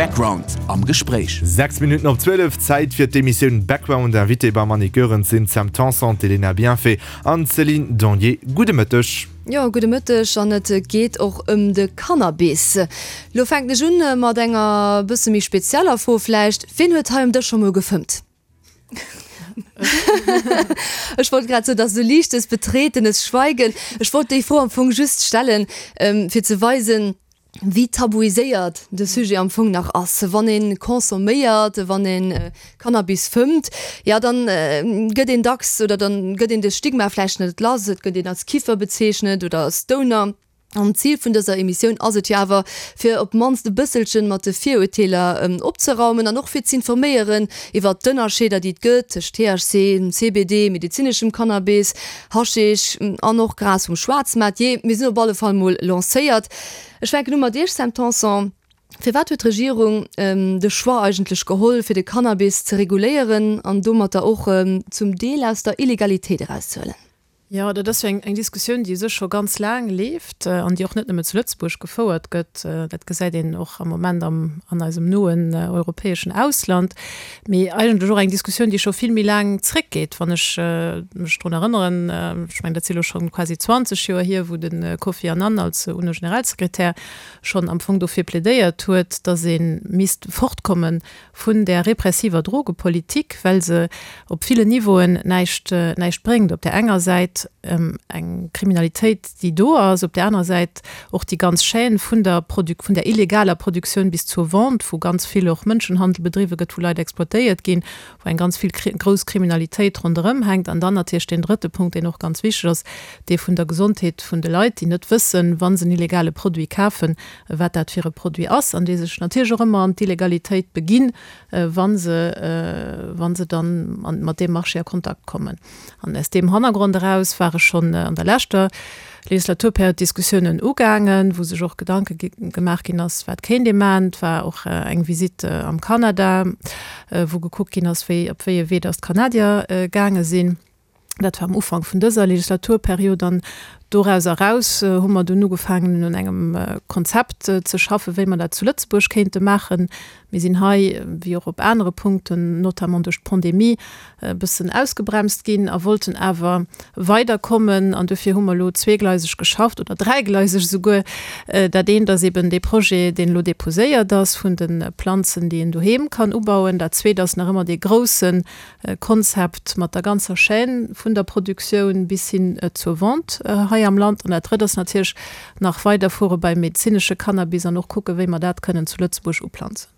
Background am Gespréich. 6 Minutten op 12, Zäit fir d'Emissioun Background. Invité beim Annick Goerens sinn d'Sam Tanson, d'Elena Bienfait an d'Céline Donnier. Gudde Mëtteg. Jo, gudde Mëtteg. An et geet och ëm de Cannabis. Lo fänken ech un mat enger bësse méi spezieller Fro vläicht, Wien huet hei um Dësch scho mol gefëmmt? Ech wollt grad soen, dass esou liichtes betretenes Schweigen. Ech wollt déi Fro am Fong just stellen, fir ze weisen, wéi tabuiséiert de Sujet am Fong nach ass. Wann ee consomméiert, wann ee Cannabis fëmmt, jo dann gëtt een dacks oder dann gëtt een de Stigma vläicht net lass, et gëtt een als Kiffer bezeechnet oder als Stoner. An d'Zil vun dëser Emissioun ass et jo awer, fir op d'mannst e bësselchen mat de Virurteeler opzeraumen an och fir z'informéieren iwwert d'Ënnerscheeder, déi et gëtt tëscht THC, CBD, medezineschem Cannabis, Haschisch an och Gras vum Schwaarzmaart. Jee, mir sinn op alle Fall mol lancéiert. Ech fänken u mat Iech, Sam Tanson. Firwat huet d'Regierung de Choix eigentlech geholl, fir de Cannabis ze reguléieren an domatter och zum Deel aus der Illegalitéit erauszehuelen? Jo, dat ass jo eng Diskussioun, déi u sech scho ganz laang leeft an déi och net nëmme zu Lëtzebuerg gefouert gëtt. Dat gesäit een och am Moment am, an eisem noen europäeschen Ausland. Mee eigentlech och eng Diskussioun, déi scho vill méi laang zréckgeet, wann ech mech drun erënneren, ech mengen, dat si elo scho quasi 20 Joer hier, wou de Kofi Annan als UNO-Generalsekretär schonn am Fong dofir plädéiert huet, datt ee misst fortkomme vun där repressiver Drogepolitik, well se op villen Niveauen näischt, näischt bréngt. Op där enger Säit eng Kriminalitéit, déi do ass, op där anerer Säit och déi ganz Chaîne vun der Produ-, vun der illegaler Produktioun bis zur Vente, wou ganz vill och Mënschenhandel bedriwwe gëtt, wou Leit exploitéiert ginn, wou eng ganz vill grouss Kriminalitéit ronderëm hänkt. An dann natierlech deen drëtte Punkt, deen och ganz wichteg ass, dee vun der Gesondheet vun de Leit, déi net wëssen, wa se en illegale Produit kafen, wat dat fir e Produit ass, an déi sech natierlech och ëmmer an d'Illegalitéit beginn, wa se, wa se dann mat deem Marché a Kontakt kommen. An aus deem Hannergrond eraus ware schonn an der leschter Legislaturperiod Diskussiounen ugaangen, wou sech och Gedanke gemaach ginn ass, wat kéint ee maachen. Et war och eng Visitt am Kanada, wou gekuckt ginn ass, wéi, op wéi e Wee datt d'Kanadier gaange sinn. Dat war am Ufank vun dëser Legislaturperiod an doraus eraus hu mer dunn ugefaangen un engem Konzept ze schaffen, wéi mer dat zu Lëtzebuerg kéinte maachen. Mir sinn hei, wéi och op anere Punkten, notamment duerch d'Pandemie, e bëssen ausgebremst ginn a wollten awer weiderkommen. An dofir hu mer elo zweegleiseg geschafft oder dräigleiseg esouguer. Dat eent ass eben dee Projet, deen elo deposéiert ass vun de Planzen, déi een doheem kann ubauen. Dat zweet ass nach ëmmer dee groussen Konzept mat der ganzer Chaîne vun der Produktioun bis hin zur Vente hei am Land. An dat Drëtt ass natierlech nach weiderfuere beim medezinesche Cannabis an och kucken, wéi mer dat kënnen zu Lëtzebuerg uplanzen.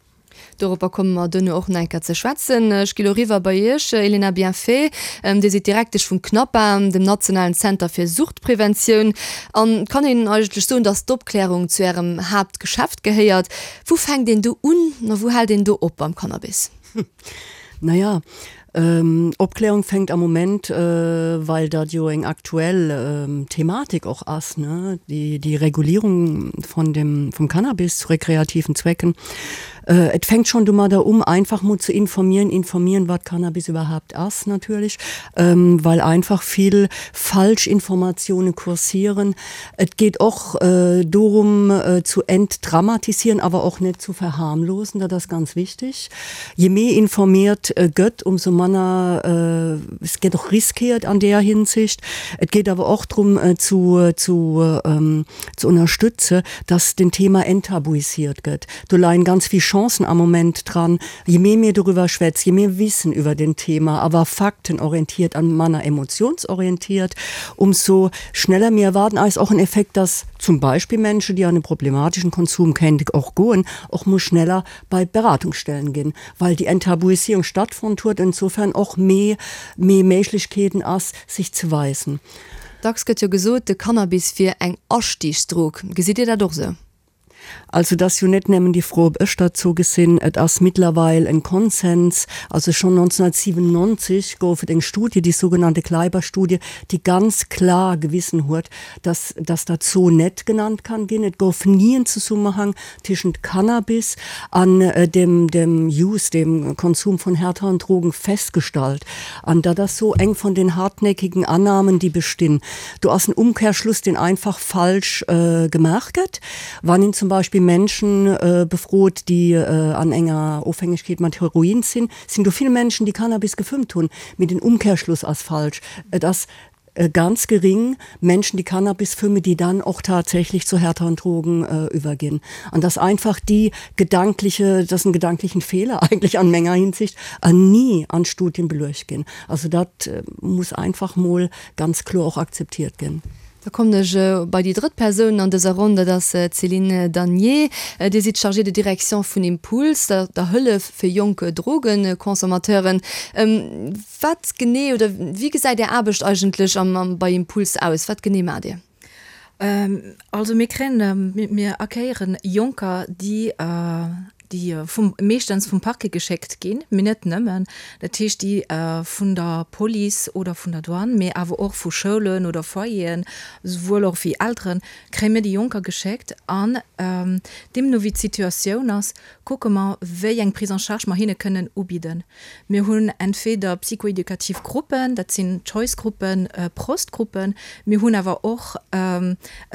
Doropper komme mer duerno och nach eng Kéier ze schwätzen. Ech gi lo eriwwer bei Iech, Elena Bienfait. Dir sidd Direktesch vum CNAPA, dem nationalen Zenter fir Suchtpreventioun. An et kann een eigentlech soen, dass d'Opklärung zu Ärem Haaptgeschäft gehéiert. Wou fänkt een do un a wou hält een do op beim Cannabis? Naja, Opklärung fänkt am Moment, well dat jo eng aktuell Thematik och ass, ne, déi, déi Regulierung von dem, vum Cannabis zu rekreativen Zwecken. Et fänkt schon domadder um, einfach mol ze informieren, informieren, wat Cannabis überhaupt ass natierlech, well einfach vill Falschinformatiounen kursieren. Et geet och dorum zu entdramatisieren, awer och net zu verharmlosen, dat ass ganz wichtig. Je méi informiert gëtt, umso manner, es gëtt och riskiert an deeër Hinsicht. Et geet awer och drëm zu, zu, ze ënnerstëtze, dass den Thema enttabuisiert gëtt. Do leien ganz vill Chancen am Moment dran. Je méi mir dorüwer schwätz, je méi wissen iwwer den Thema, awer faktenorientiert an manner emotionsorientiert, umso schneller mir erwarten eis och en Effekt, dass zum Beispill Menschen, déi an e problematischen Konsum kéinte och goen, och mol schneller bei Beratungsstellen ginn, well déi Enttabuisierung stattfonnt huet, insofern och méi méi Méiglechkeeten ass, sech ze weisen. Dacks gëtt jo gesot, de Cannabis wier eng Astiigsdrog. Gesitt Dir dat och esou? Also et ass jo net nëmmen déi Fro, ob ech dat esou gesinn. Et ass mittlerweil en Konsens, also schonn 1997 gouf et eng Studie, déi sougenannte Kleiber-Studie, déi ganz klar gewissen huet, dass dass dat esou net genannt kann ginn. Et gouf ni en Zesummenhang tëschent Cannabis an dem dem Use, dem Konsum von härteren Drogen festgestallt. An dat ass sou eng von den hartnäckigen Annahmen, déi bestinn. Do ass en Umkehrschluss, deen einfach falsch gemaach gëtt, wann een zum. Beispill Menschen äh, befrot, déi äh, an enger Ofhängegkeet mat Heroin sinn, sinn do vill Menschen, déi Cannabis gefëmmt hunn. Mee den Umkehrschluss ass falsch. Et ass ganz gering Menschen, déi Cannabis fëmmen, déi dann och tatsächlich zu härteren Drogen äh, überginn. An dass einfach déi gedankliche, das en gedanklichen Fehler eigentlich an menger Hinsicht, an nie an Studien beluecht ginn. Also dat muss einfach mol ganz kloer och akzeptiert ginn. Da kommen ech bei déi drëtt Persoun an dëser Ronn, dat ass d'Céline Danier. Dir sidd Chargée de direction vun Impuls, der Hëllef fir jonk Drogenconsommateuren. Wat genee oder wéi gesäit Är Aarbecht eigentlech bei Impuls aus? Wat genee maacht Dir? Also mir kréien, mir accueillieren Jonker, déi déi vum, meeschtens vum Parquet geschéckt ginn, mee net nëmmen, dat heescht déi vun der Police oder vun der Douane, mee awer och vu Schoulen oder Foyeren, souwuel och wéi Elteren, kréie mir déi Jonker geschéckt an deemno wéi d'Situatioun ass, kucke mer wéi eng Prise en charge mer hinne kënnen ubidden. Mir hunn entweder psychoeducativ Gruppen, dat sinn Choice-Gruppen, Prost-Gruppen. Mir hunn awer och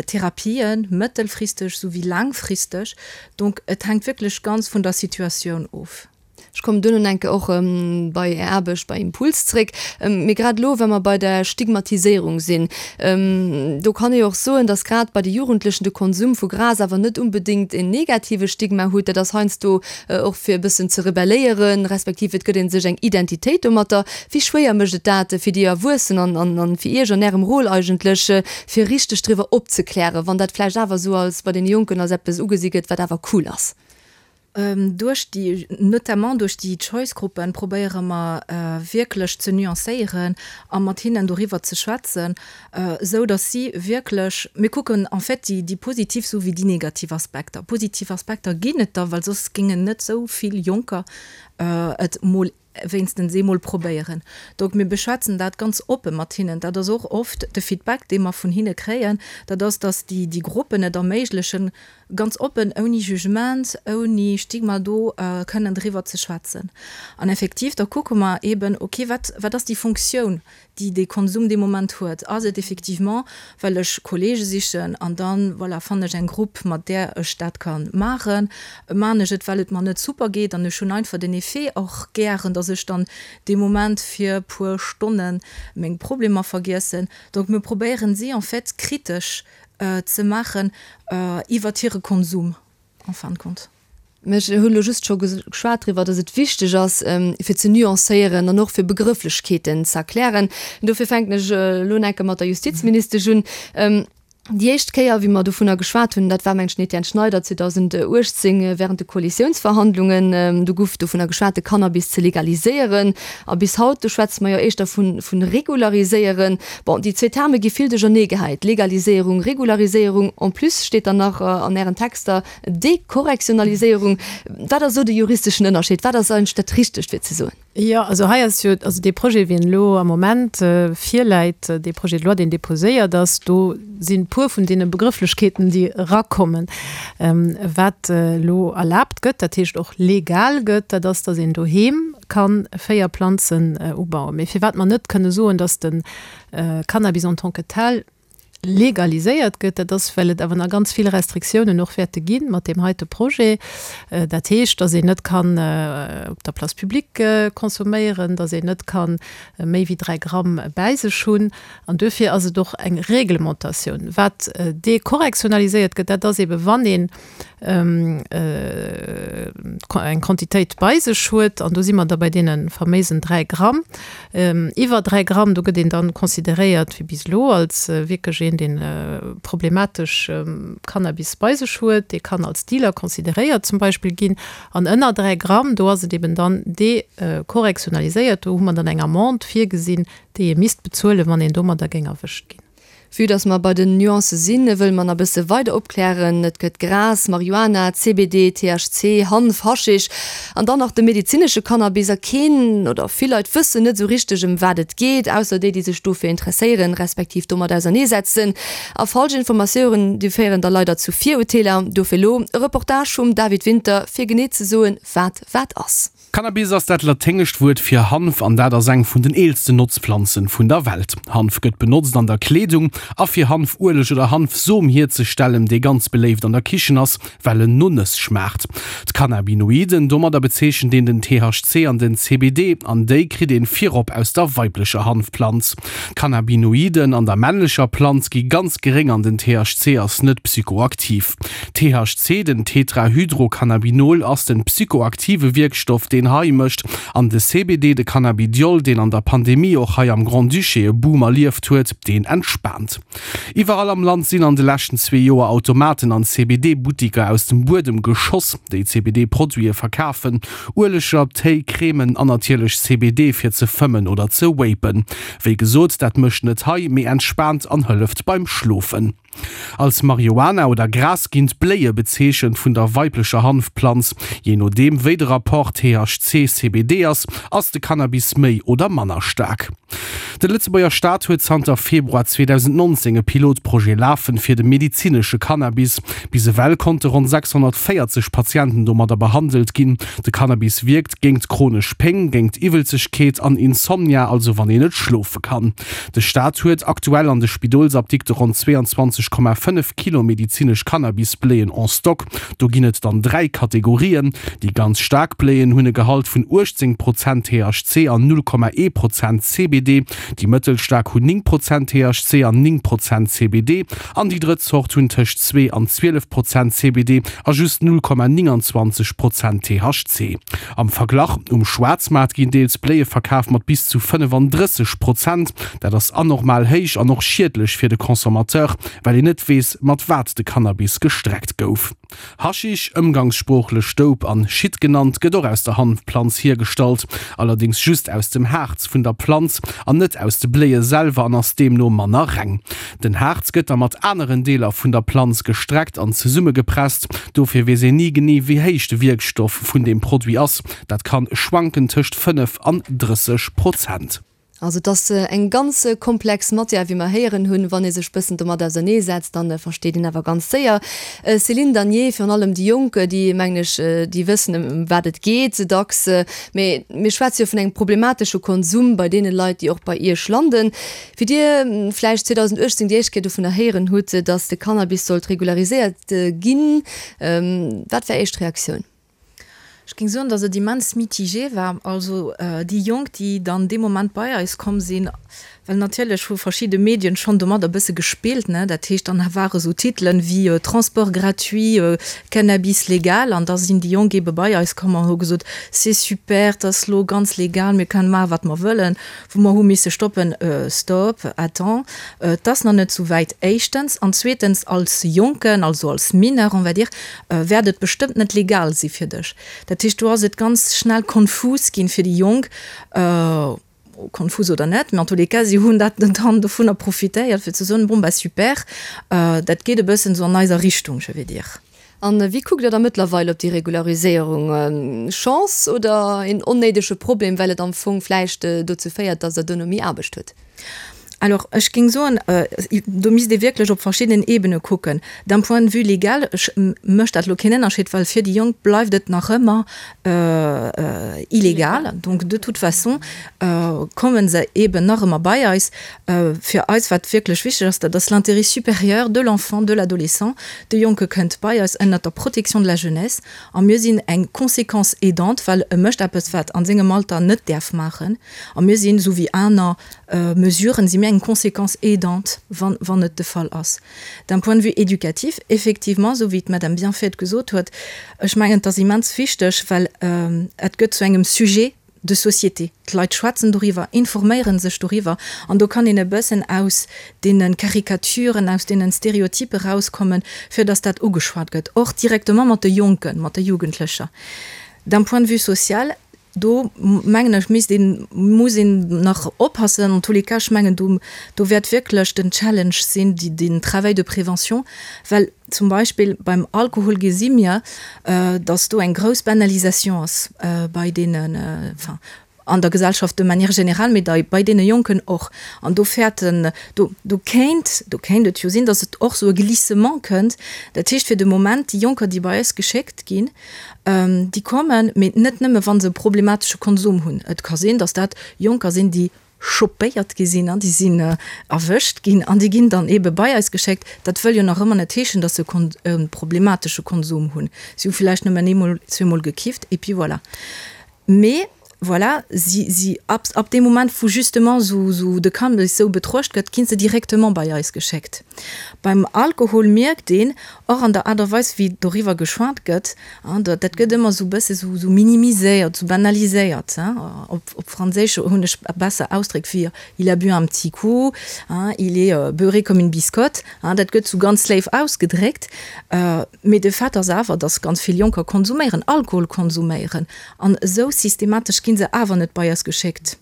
Therapien, mëttelfristeg souwéi laangfristeg. Donc et hänkt wierklech ganz vun der Situatioun of. Ech kommen duerno enke och bei Är Aarbecht bei Impuls zréck. Mee grad elo, wa mer bei der Stigmatiséierung sinn, do kann ee jo och soen, datt grad bei de Jugendlechen de Konsum vu Gras awer net unbedéngt en negative Stigma huet. Dat ass heiansdo och fir e bëssen ze rebelléieren, respektiv et gëtt ee sech eng Identitéit domatter. Wéi schwéier mécht et dat fir déi Erwuessen an an fir Iech an Ärem Rôle eigentlech, fir richteg driwwer opzeklären, wann dat vläicht awer esou als bei deene Jonken als eppes ugesi gëtt, wat awer cool ass? Duerch déi, notamment duerch déi Choice-Gruppen probéiere mer wierklech ze nuancéieren a mat hinnen doriwwer ze schwätzen, esou datt si wierklech, mir kucken en fait déi, déi positiv esou wéi déi negativ Aspekter. Positiv Aspekter ginn et der, well soss géingen net esou vill Jonker et mol wéinstens eemol probéieren. Donc mir beschwätzen dat ganz oppe mat hinnen. Dat ass och oft de Feedback, dee mer vun hinne kréien, dat ass, datt déi, déi Gruppen et erméiglechen, ganz oppen, ouni Jugement, ouni Stigma do kënnen driwwer ze schwätzen. An effektiv, da kucke mer eeben, okay, wat, wat ass déi Funktioun, déi dee Konsum dee Moment huet. Ass et effectivement, well ech Kollege sichen an dann, voilà, fannen ech eng Grupp, mat där ech dat ka maachen? Maan ech et, well et mer net super geet an ech hunn einfach den Effet och gären, dass ech dann dee Moment fir puer Stonne meng Problemer vergiessen? Donc mir probéieren si en fait kritesch ze maachen iwwert hire Konsum en fin de compte. Mä ech hunn elo just scho geschwat driwwer, dass et wichteg ass, fir ze nuancéieren an och fir Begrëfflechkeeten ze erklären. Dofir fänken ech elo enke mat der Justizministesch un. Déi éischt Kéier, wéi mer dovunner geschwat hunn, dat war, mengen ech, den Etienne Schneider 2018 während de Koalitiounsverhandlungen. Do guff dovunner geschwat, de Cannabis ze legaliséieren. A bis haut, do schwätze mer jo éischter vu regulariséieren. Bon, déi zwee Terme gi vill duercherneegehäit, Legaliséierung, Regulariséierung. En plus steet dann nach an Ären Texter, Dekorrektionaliséierung, wat ass do de juristeschen Ënnerscheed? Wat ass eigentlech dat Richtegt fir ze soen? Jo, also hei ass jo, also dee Projet, wéi en elo am Moment virläit, dee Projet de loi, deen déposéiert ass, do sinn e puer vun deene Begrëfflechkeeten, déi erakommen. Wat elo erlaabt gëtt, dat heescht och legal gëtt, dat ass, datt een doheem ka 4 Planzen ubauen. Mee firwat mer net kënne soen, datt de Cannabis en tant que tel legaliséiert gëtt, dat ass, well et awer nach ganz vill Restriktiounen och wäerte gi mat deem heite Projet. Dat heescht, datt een net kann op der Place publique consomméieren, datt een net ka méi wéi 3 Gramm bäi sech hunn. An duerfir ass et och eng Reglementatioun. Wat dekorrektionaliséiert gëtt, dat ass eebe wann een eng Quantitéit bei sech huet, an do si mer da bei deene faméisen 3 Gramm, iwwer 3 Gramm, do gëtt een dann consideréiert wéi bis elo als wierklech een, dee problematesch Cannabis bei sech huet, dee kann als Dealer consideréiert zum Beispill ginn. An ënner 3 Gramm, do ass et eben dann dekorrektionaliséiert, do hu mer dann eng Amende virgesinn, déi ee misst bezuelen, wann een domadder géing erwëscht ginn. Vue dass mer bei den Nuancë sinn, wëlle mer nach e bësse weider opklären. Et gëtt Gras, Marihuana, CBD, THC, Hanf, Haschisch an dann nach de medezinesche Cannabis. A keen oder vill Leit wëssen net esou richteg ëm wat et geet, ausser déi, déi sech dofir interesséieren, respektiv domat auserneesetzen. A falsch Informatiouren, déi féieren da leider zu Virurteeler. Dofir elo e Reportage vum David Winter, fir genee ze soen, wat wat ass. Cannabis ass dat laténgescht Wuert fir Hanf an dat ass eng vun den eelsten Notzplanzen vun der Welt. Hanf gëtt benotzt an der Kleedung a fir Hanfueleg oder Hanfsom hierzestellen, dee ganz beléift an der Kichen ass, well en no Nëss schmaacht. D'Cannabinoiden, domadder bezeechent een den THC an den CBD, an déi kritt een virop aus der weiblecher Hanfplanz. D'Cannabinoiden an der männlecher Planz gi ganz geréng an den THC ass net psychoaktiv. THC, den Tetrahydrocannabinol, ass den psychoaktive Wierkstoff deen high mécht an de CBD, de Cannabidiol, deen an der Pandemie och hei am Grand-Duché e Boom erlieft huet, deen entspaant. Iwwerall am Land sinn an de leschten zwee Joer Automaten an CBD-Buttiker aus dem Buedem geschoss, déi CBD-Produite verkafen, Ueleger, Téi, Cremen an natierlech CBD fir ze fëmmen oder ze vapen. Wéi gesot, dat mécht net high, mee entspaant an hëlleft beim Schlofen. Als Marihuana oder Gras ginn d'Bléie bezeechent vun der weiblecher Hanfplanz. Jee nodeem wéi de Rapport THC-CBD ass, ass de Cannabis méi oder manner staark. De Lëtzebuerger Staat huet zanter Februar 2019 e Pilotprojet lafen fir de medezinesche Cannabis. Bis ewell konnte ronn 640 Patienten domadder behandelt ginn. De Cannabis wierkt géingt chronesch Péng, géingt Iwwelzegkeet an Insomnia, also wann een net schlofe kann. De Staat huet aktuell an de Spidolsapdikte ronn 22,5 Kilo medizinesch Cannabisbléien en stock. Do ginn et dann 3 Kategorien. Déi ganz staark Bléien hunn e Gehalt vun 18 Prozent THC an 0,1 Prozent CBD. Déi mëttelstaark hunn 9 Prozent THC an 9 Prozent CBD. An déi drëtt Zort hunn tëscht 2 an 12 Prozent CBD a just 0,29 Prozent THC. Am Verglach, Um Schwaarzmaart ginn deels Bléie verkaf mat bis zu 35 Prozent. Dat ass anormal héich an och schiedlech fir de Consommateur, well een net weess, mat wat de Cannabis gestreckt gouf. Haschisch, ëmgangssproochlech Dope an Shit genannt, gëtt och aus der Hanfplanz hiergestallt, allerdéngs just aus dem Haarz vun der Planz an net aus de Bléie selwer an ass deemno manner reng. Den Haarz gëtt da mat aneren Deeler vun der Planz gestreckt an zesummegepresst. Dofir weess een ni genee wéi héich de Wierkstoff vun deem Produit ass, dat kann schwanken tëscht 5 an 30 Prozent. Also et ass eng ganz komplex Matière, wéi mer héieren hunn. Wann ee sech bëssen domat ausernee setzt, dann versteet een awer ganz séier. Céline Danier, Virun allem déi Jonk, déi mengen ech, déi wëssen ëm wat et geet dacks. Mee mir schwätze jo vun engem problematesche Konsum bei deene Leit, déi och bei Iech landen. Wéi Dir vläicht 2018 déi éischt Kéier dovunner héieren hutt, datt de Cannabis sollt regulariséiert ginn, wat war éischt Reaktioun? Ech géing soen, datt et immens mitigé war. Also déi Jonk, déi dann dee Moment bei eis komm sinn, well natierlech hu verschidde Medien schonn domadder e bësse gespillt, ne, dat heescht, dann ware sou Titelen wéi Transport gratuit, Cannabis légal an da sinn déi Jonk eebe bei eis komm an hu gesot, c'est super, 't ass lo ganz legal, mir kënnen maache wat mer wëllen, wou mer hu misse stoppen, Stop, attends, 't ass nach net sou wäit, éischtens, an zweetens als Jonken, also als Mineur, on va dire, wäert et bestëmmt net legal si fir dech. Dat heescht, do ass et ganz schnell konfus ginn fir déi Jonk, konfus oder net, mä en tous les cas, si hunn dat dann dovunner profitéiert fir ze soen, bon bah super, dat geet e bëssen esou an eiser Richtung, je vais dire. A wéi kuckt Der da mëttlerweil op déi Regulariséierung? Chance oder een onnéidege Problem, well et am Fong vläicht dozou féiert, datt Der duerno méi Aarbecht hutt? Alors, ech géing soen, do misst ee wierklech op verschiddenen Ebene kucken. D'un point de vue légal mécht dat elo keen Ënnerscheed, well fir déi Jonk bleift et nach ëmmer illegal. Donc de toute façon komme se eeben nach ëmmer bei eis. Fir eis, wat wierklech wichteg ass, dat ass l'intérêt supérieur de l'enfant, de l'adolescent. De Jonke kënnt bei eis ënnert der Protection de la jeunesse a mir sinn eng Conséquence aidante, well e mécht eppes, wat an sengem Alter net däerf maachen. A mir sinn, esou wéi aner Mesuren, si mir eng Conséquence aidante, wann, wann et de Fall ass. D'un point de vue éducatif, effectivement, esou wéi d'Madame Bienfait et gesot huet, ech mengen, et ass immens wichteg, well et gëtt zu engem Sujet de société. D'Leit schwätzen doriwwer, informéiere sech doriwwer an do kann een e bëssen aus deene Karikaturen, aus deenen Stereotype rauskommen, fir dass dat ugeschwat gëtt, och directement mat de Jonken, mat de Jugendlecher. D'un point de vue social, Do mengen ech, misst een, muss een nach oppassen. En tous les cas, ech mengen, do, do wäert wierklech den Challenge sinn, déi, den Travail de prévention, well zum Beispill beim Alkohol gesi mir, dass do eng grouss Banalisation ass bei deenen, enfin, An der Gesellschaft de manière générale, mee dei bei deene Jonken och. An do fäerten, do, do kéint, do kéint et jo sinn, datt et och esou e Glissement kënnt. Dat heescht fir de Moment, déi Jonker, déi bei eis geschéckt ginn, déi kommen, mee net nëmme wa se e problematesche Konsum hunn. Et ka sinn, datt dat Jonker sinn, déi chopéiert gi sinn an déi sinn erwëscht ginn an déi ginn dann eebe bei eis geschéckt. Dat wëll jo nach ëmmer net heeschen, datt se e problematesche Konsum hunn. Si hu villäicht nëmmen eemol, zweemol gekifft et puis voilà. Mee voilà, si, si, ab, ab deem Moment, wou justement esou, esou de Cannabis esou betruecht gëtt, gi se directement bei eis geschéckt. Beim Alkohol mierkt een och an der Aart a Weis, wéi doriwwer geschwat gëtt, dat, dat gëtt ëmmer esou e bësse esou, esou minimiséiert, esou banaliséiert. Op, op Franséisch hunn ech besser Ausdréck wéi il a bu un petit coup, il est beurré comme une biscotte. Dat gëtt esou ganz léif ausgedréckt. Mee de Fait ass awer, dass ganz vill Jonker konsuméieren, Alkohol konsuméieren. An esou systematesch gi se awer net bei eis geschéckt.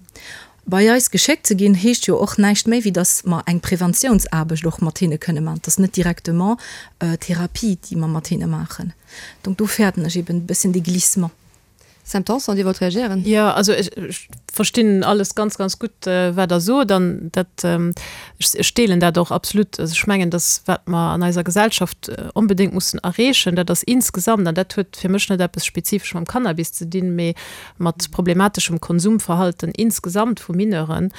Bei eis geschéckt ze ginn, heescht jo och näischt méi, wéi dass mer eng Preventiounsaarbecht och mat hinne kënne maachen. Et ass net directement Therapie, déi mer mat hinne maachen. Donc do fäerten ech eben e bësschen dee Glissement. Sam Tanson, Dir wollt reagéieren? Jo, also ech verstinn alles ganz, ganz gutt, wat Der sot. An dat, ech deelen dat och absolut. Also ech mengen, dass wat mer an eiser Gesellschaft onbedéngt mussen erreechen, dat ass insgesamt, an dat huet fir mech net eppes spezifesch mam Cannabis ze dinn, mee mat problemateschem Konsumverhalten insgesamt vu Mineuren,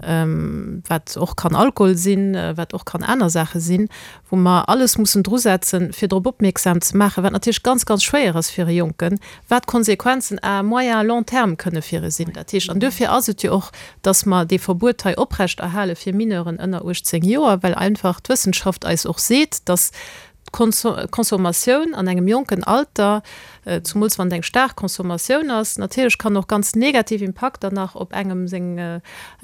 wat och kann Alkohol sinn, wat och kann aner Saache sinn, wou mer alles mussen drusetzen, fir drop opmierksam ze maachen, wat natierlech ganz, ganz schwéier ass fir e Jonken, wat d'Konsequenzen à moyen à long terme kënne fir e sinn. Dat heescht, an duerfir ass et jo och, dass mer dee Verbuet hei oprechterhale fir Mineuren ënner 18 Joer, well einfach d'Wëssenschaft eis och seet, dass d'Consommatioun an engem jonken Alter, zumools wann et eng staark Consommatioun ass, natierlech kann och ganz negativ Impakter nach op engem seng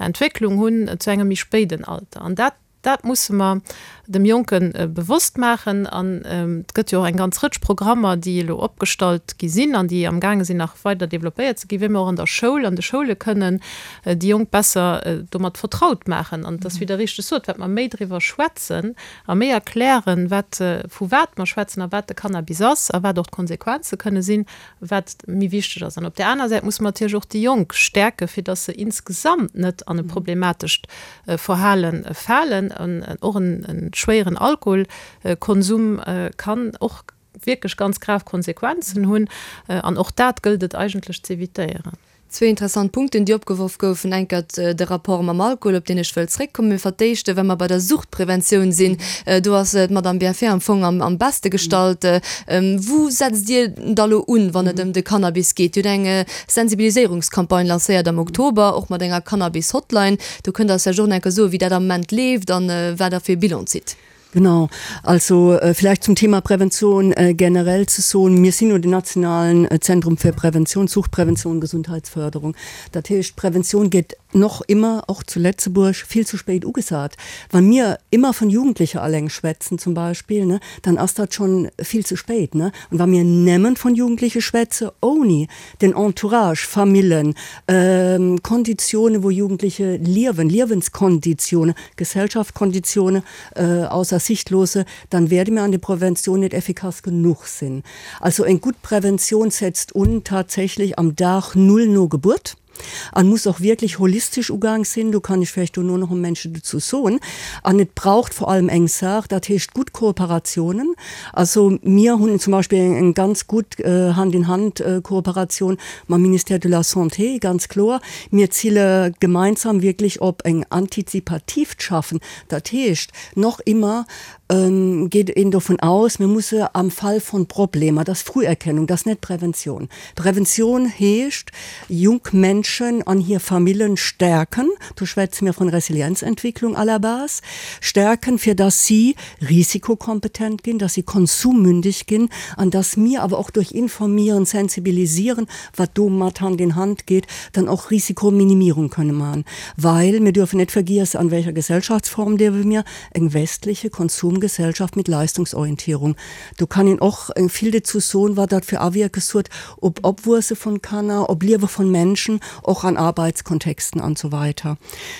Entwécklung hunn zu engem méi spéiden Alter. An dat Dat musse mer dem Jonke bewosst maachen. An et gëtt jo och eng ganz Rëtsch Programmer, déi elo opgestallt gi sinn an déi amgaange sinn nach weider développéiert ze ginn, wéi mer och an der Schoul, an de Schoule kënnen déi Jonk besser domat vertraut maachen. An et ass, wéi Der richteg sot, wat mer méi driwwer schwätzen a méi erklären, wat, vu wat mer schwätzen a wat de Cannabis ass a wat och d'Konsequenze kënne sinn, wat méi wichteg ass. An op där aner Säit musse mer natierlech och déi Jonk stäerken, fir dass se insgesamt net an e problematescht Verhale falen. An och e schwéieren Alkoholkonsum kann och wierklech ganz grav Konsequenzen hunn. An och dat gëllt et eigentlech z'evitéieren. Zwee interessant Punkten, déi opgeworf goufen. Enkert de Rapport mam Alkohol, op deen ech wëll zréckkommen. Mee fir d'éischt, wa mer bei der Suchtpreventioun sinn, do ass d'Madame Bienfait am Fong am beschte gestallt. Wou setzt Dir da lo un, wann et ëm de Cannabis geet? Dir hutt eng Sensibiliséierungscampagne lancéiert am Oktober, och mat enger Cannabis-Hotline. Do kënnt Der eis vläicht och nach eng Kéier soen, wéi dat am Moment leeft an wat Der fir e Bilan zitt. Genau. Also vielleicht zum Thema Prävention generell ze soen, Mir sinn jo den nationalen Zentrum fir Prävention, Suchtprävention, Gesundheitsförderung. Dat heescht, Prävention gétt noch immer, och zu Lëtzebuerg, vill zu spéit ugesat. Wa mir immer vun Jugendlecher alleng schwätzen zum Beispill, ne, dann ass dat schonn vill ze spéit, ne. An wa mir nëmmen vun Jugendleche schwätze ouni den Entourage, Famillen, Konditione wou Jugendliche liewen, Liewenskonditione, Gesellschaftskonditione, ausser Sicht loosse, dann werde mir an der Prävention net effikass genuch sinn. Also eng gutt Prävention setzt un tatsächlich am Dag Null no Gebuert an muss och wierklech holistisch ugaang sinn, do kann ech vläicht dono nach e Momentchen dozou soen. An et braucht vor allem eng Saach, dat heescht gutt Kooperationen. Also mir hunn zum Beispill eng ganz gutt Hand-in-Hand-Kooperation mam Ministère de la Santé, ganz kloer. Mir zille gemeinsam wierklech op eng antizipatiivt Schaffen. Dat heescht, noch immer geet een dovun aus, mir musse am Fall von Problemer, dat ass Früherkennung, dat ass net Prävention. Prävention heescht, junk Menschen an hir Famillen stärken, do schwätze mir von Resilienzentwicklung à la base, stärken, fir dass si risikokompetent ginn, dass si konsummündig ginn an dass mir awer och durch Informieren, Sensibilisieren, wat do mat Hand in Hand geet, dann och Risikominimierung kënne man. Well mir dürfen net vergiessen, an welcher Gesellschaftsform liewe mir, eng westliche Konsumgesellschaft mit Leistungsorientierung. Do kann een och vill dozou soen, wat dat fir Awierkes huet op Opwuesse von Kanner, op Liewe von Menschen. och an Arbeitskontexten an so weiter.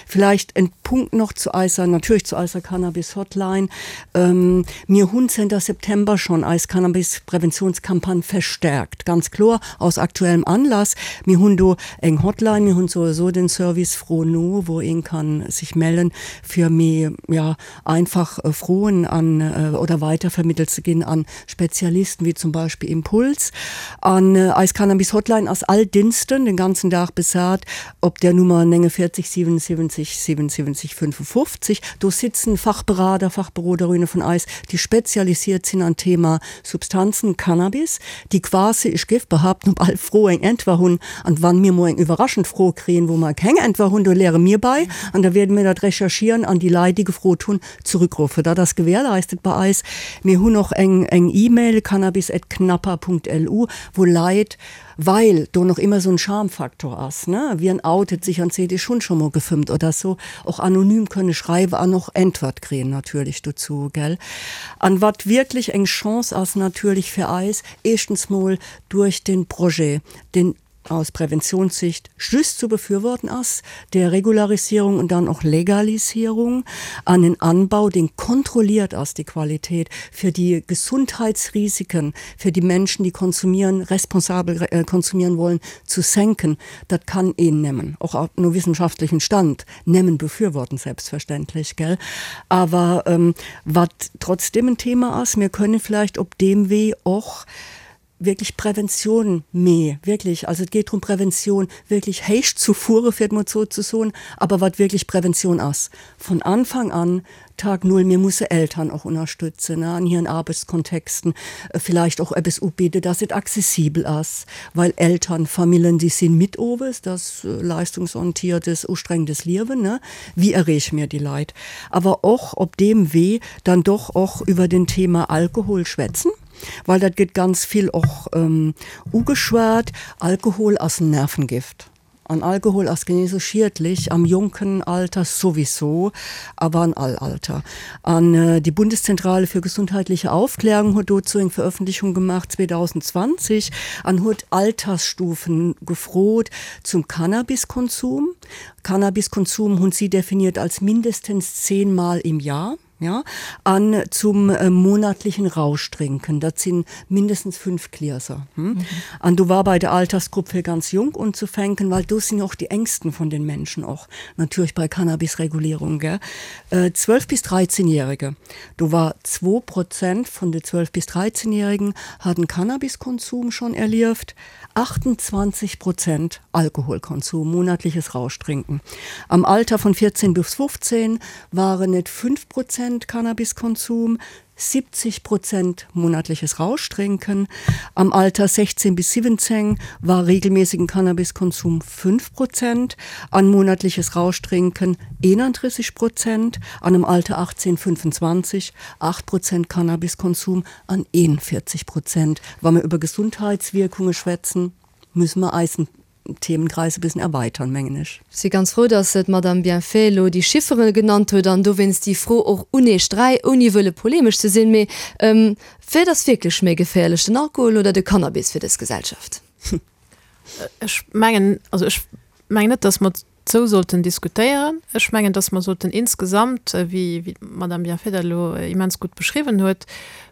Vielleicht en Punkt noch zu eiser, natierlech zu eiser Cannabis-Hotline. Mir hunn zënter September schonn eis Cannabis-Präventionscampagne verstärkt, ganz kloer aus aktuellem Anlass. Mir hunn do eng Hotline, mir hunn souwisou den Service Fro no, wou een kann sech mellen, fir méi, ja, einfach Froen an oder weitervermittelt ze ginn an Spezialisten, wéi zum Beispill Impuls. An eis Cannabis-Hotline ass all Dinsden den ganzen Dag besat op der Nummer 49 77 77 55. Do sitzen Fachberater, Fachberoderinne vun eis, déi spezialisiert sinn an Thema Substanzen, Cannabis, déi quasi, ech géif behaapten, op all Fro eng Äntwer hunn. An wann mir mol eng iwwerraschend Fro kréien, wou mer keng Äntwer hunn, do leere mir bei an da wäerde mir dat recherchieren an déi Leit, déi gefrot hunn, zurückruffen. Dat ass gewährleistet bei eis. Mir hunn och eng eng E-Mail, cannabis@knappa.lu, wou Leit, well do nach immer esou en Schamfaktor ass, ne, wien outet sech an seet, ech hunn scho mol gefëmmt oder sou, och anonym kënne schreiwen an och Äntwert kréien natierlech dozou, gell. An wat wierklech eng Chance ass natierlech fir eis, éischtens mol duerch den Projet, deen aus Präventionssicht just zu befürworten ass, der Regularisierung und dann och Legalisierung, an en Anbau, deen kontrolliert ass, déi Qualität, fir déi Gesundheitsrisiken fir déi Menschen, déi konsumieren, responsabel konsumieren wollen, zu senken, dat kann een nemmen, och no wissenschaftlichem Stand, nemmen befürworten, selbstverständlich, gell. Awer wat trotzdem en Thema ass, mir können vielleicht op deem Wee och wierklech Prävention mee wierklech, also et geet drëm Prävention wierklech héich zu fuere fir et mol esou ze soen, awer wat wierklech Prävention ass von Anfang an, Tag Null, mir musse Eltern och ënnerstëtzen an hiren Arbechtskontexten, vielleicht och eppes ubidde, dass et accessibel ass, well Eltern, Famillen, déi sinn midd owes, das leistungsorientiertes, ustrengendes Liewen, ne, wéi erreeche mir déi Leit? Awer och op deem Wee dann doch och iwwer den Thema Alkohol schwätzen. Well dat gëtt ganz vill och ugeschwat, Alkohol ass en Nervengift. An Alkohol ass genee esou schiedlech am jonken Alter souwisou, awer an all Alter. An déi Bundeszentrale für gesundheitliche Aufklärung huet dozou eng Veröffentlichung gemaach 2020 an huet Altersstufen gefrot zum Cannabiskonsum. Cannabiskonsum hunn si definiert als mindestens zehnmal im Jahr. Ja, an zum monatlichen Rauschtrinken, dat sinn mindestens 5 Glieser. An do war bei der Altersgrupp fir ganz jonk unzufänken, well do sinn jo och déi Ängsten vun den Menschen och natierlech bei Cannabisregulierung, gell, 12 bis 13 Jährige, do war zwou Prozent vun de 12 bis 13 Jährigen haten Cannabiskonsum schonn erlieft, 28 Prozent Alkoholkonsum, monatliches Rauschtrinken. Am Alter von 14 bis 15 waren et 5 Prozent Cannabiskonsum, 70 Prozent monatliches Rauschtrinken. Am Alter 16 bis 17 war regelmäßigen Cannabiskonsum 5 Prozent, an monatliches Rauschtrinken 31 Prozent, an am Alter 18, 25 8 Prozent Cannabiskonsum an 41 Prozent. Wa mer über Gesundheitswirkunge schwätzen, müssen mer eisen Themenkreis e bëssen erweitern, mengen ech. Ech si ganz frou, dass d'Madame Bienfait elo déi Chiffere genannt huet an dowéinst déi Fro och un Iech dräi, ouni wëlle polemesch ze sinn, mee wat ass wierklech méi geféierlech, den Alkohol oder de Cannabis fir dës Gesellschaft? Ech mengen, also ech mengen net, dass mer Sou sollten diskutéieren. Ech mengen, dass mer sollten insgesamt, wéi d'Madame Bienfait dat elo immens gutt beschriwwen huet,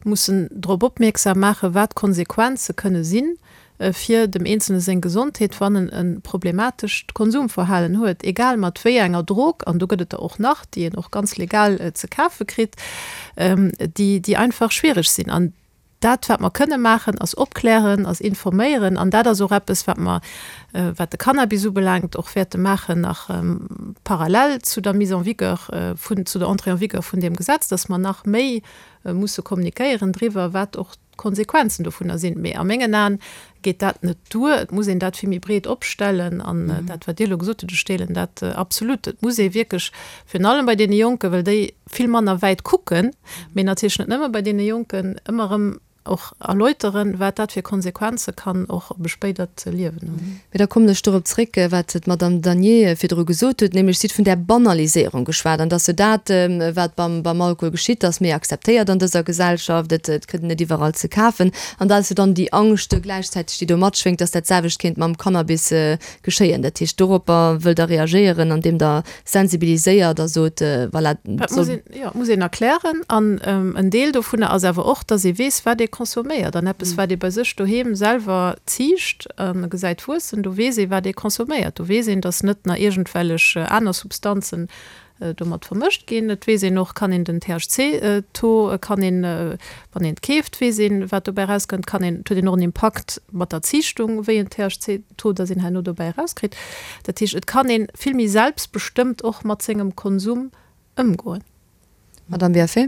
mussen drop opmierksam maachen, wat d'Konsequenze kënne si fir dem Eenzelne seng Gesondheet, wann en e problematescht Konsumverhalen huet, egal mat wéi enger Drog, an do gëtt et der och nach, déi een och ganz legal ze kafe kritt, déi einfach schwiereg sinn. An Dat, wat mer kënne maachen, ass opklären, ass informéieren. An dat ass och eppes, wat mer, wat de Cannabis ubelaangt, och wäerte maachen nach parallel zu der Mise en vigueur vun, zu der Entrée en vigueur vun deem Gesetz, dass mer nach méi musse kommunikéieren driwwer, wat och d'Konsequenzen dovunner sinn. Mee a mengen Aen geet dat net duer. Et muss een dat vill méi breet opstellen. An dat, wat Dir elo gesot hutt, ech deelen dat absolut. Et muss ee wierklech, virun allem bei deene Jonken, well déi vill manner wäit kucken, mee natierlech net nëmme bei deene Jonken, ëmmer erëm. och erläuteren, wat dat fir Konsequenze kann och op e spéidert Liewen hunn. Mee da kommen ech dorop zréck, wat d'Madame Danier virdru gesot huet, nämlech si huet vun där Banaliséierung geschwat an dass jo dat, wat beim, beim Alkohol geschitt, ass méi akzeptéiert an dëser Gesellschaft, et, et kritt een et iwwerall ze kafen. An da ass jo dann déi Angscht gläichzäiteg, déi do matschwéngt, dass dat selwecht kéint mam Cannabis geschéien. Dat heescht, doropper wëllt Der reagéieren, andeem Der sensibiliséiert a sot, voilà, Dat muss een, jo, muss een erklären. An en Deel dovunner ass awer och, dass ee weess, wat ee consomméiert. An eppes, wat ee bei sech doheem selwer ziicht a gesäit wuessen, do weess ee, wat ee consomméiert. Do weess een, dass net nach iergendwellech aner Substanzen domat vermëscht ginn. Et weess een och, kann een den THC-Taux kann een, wann een et keeft, weess een, wat dobäi erauskënnt, kann een, et huet een och en Impakt mat der Ziichtung, wéi en THC-Taux dass een herno dobäi erauskritt. Dat heescht, et kann ee vill méi selbstbestëmmt och mat sengem Konsum ëmgoen. Madame Biaffé.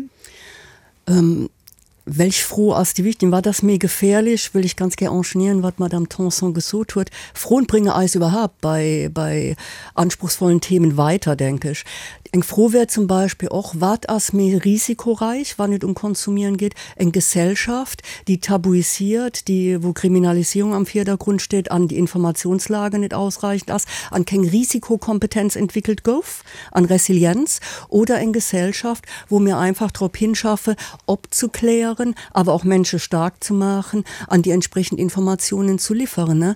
Welch Fro ass déi wichtig? Wat ass méi gefährlich? Wëll ech ganz gär enchaînieren, wat d'Madame Tanson gesot huet. Froen bringe eis überhaupt bei, bei anspruchsvollen Themen weiter, denke ech. Eng Fro wär zum Beispill och, Wat ass méi risikoreich, wann et um Konsumieren geet? Eng Gesellschaft, déi tabuisiert, déi, wou Kriminalisierung am Virdergrund steet an déi Informationslage net ausreichend ass an keng Risikokompetenz entwickelt gouf? An Resilienz oder eng Gesellschaft, wou mir einfach drop hinschaffe, opzuklären, awer och Mensche stark ze maachen an déi entsprechend Informationen zu liefern.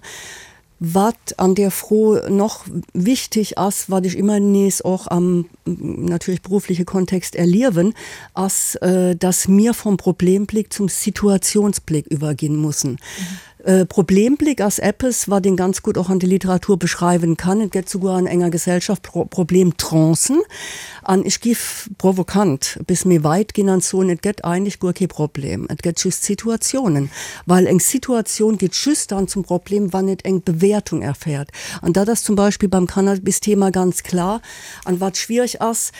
Wat an där Fro noch wichtig ass, wat ech ëmmer nees och am natierlech berufliche Kontext erliewen, ass, dass mir vom Problemblick zum Situationsblick iwwerginn mussen. Problemblick ass eppes, wat een ganz gutt och an der Literatur beschreiwen kann. Et gëtt souguer an enger Gesellschaft Problemtrancen. An ech giff provokant bis méi weit ginn an soen, et gëtt eigentlech guer kee Problem, et gëtt just Situatiounen. Well eng Situatioun gëtt just dann zum Problem, wann et eng Bewäertung erfährt. An dat ass zum Beispill beim Cannabis-Thema ganz klar. An wat schwierig ass,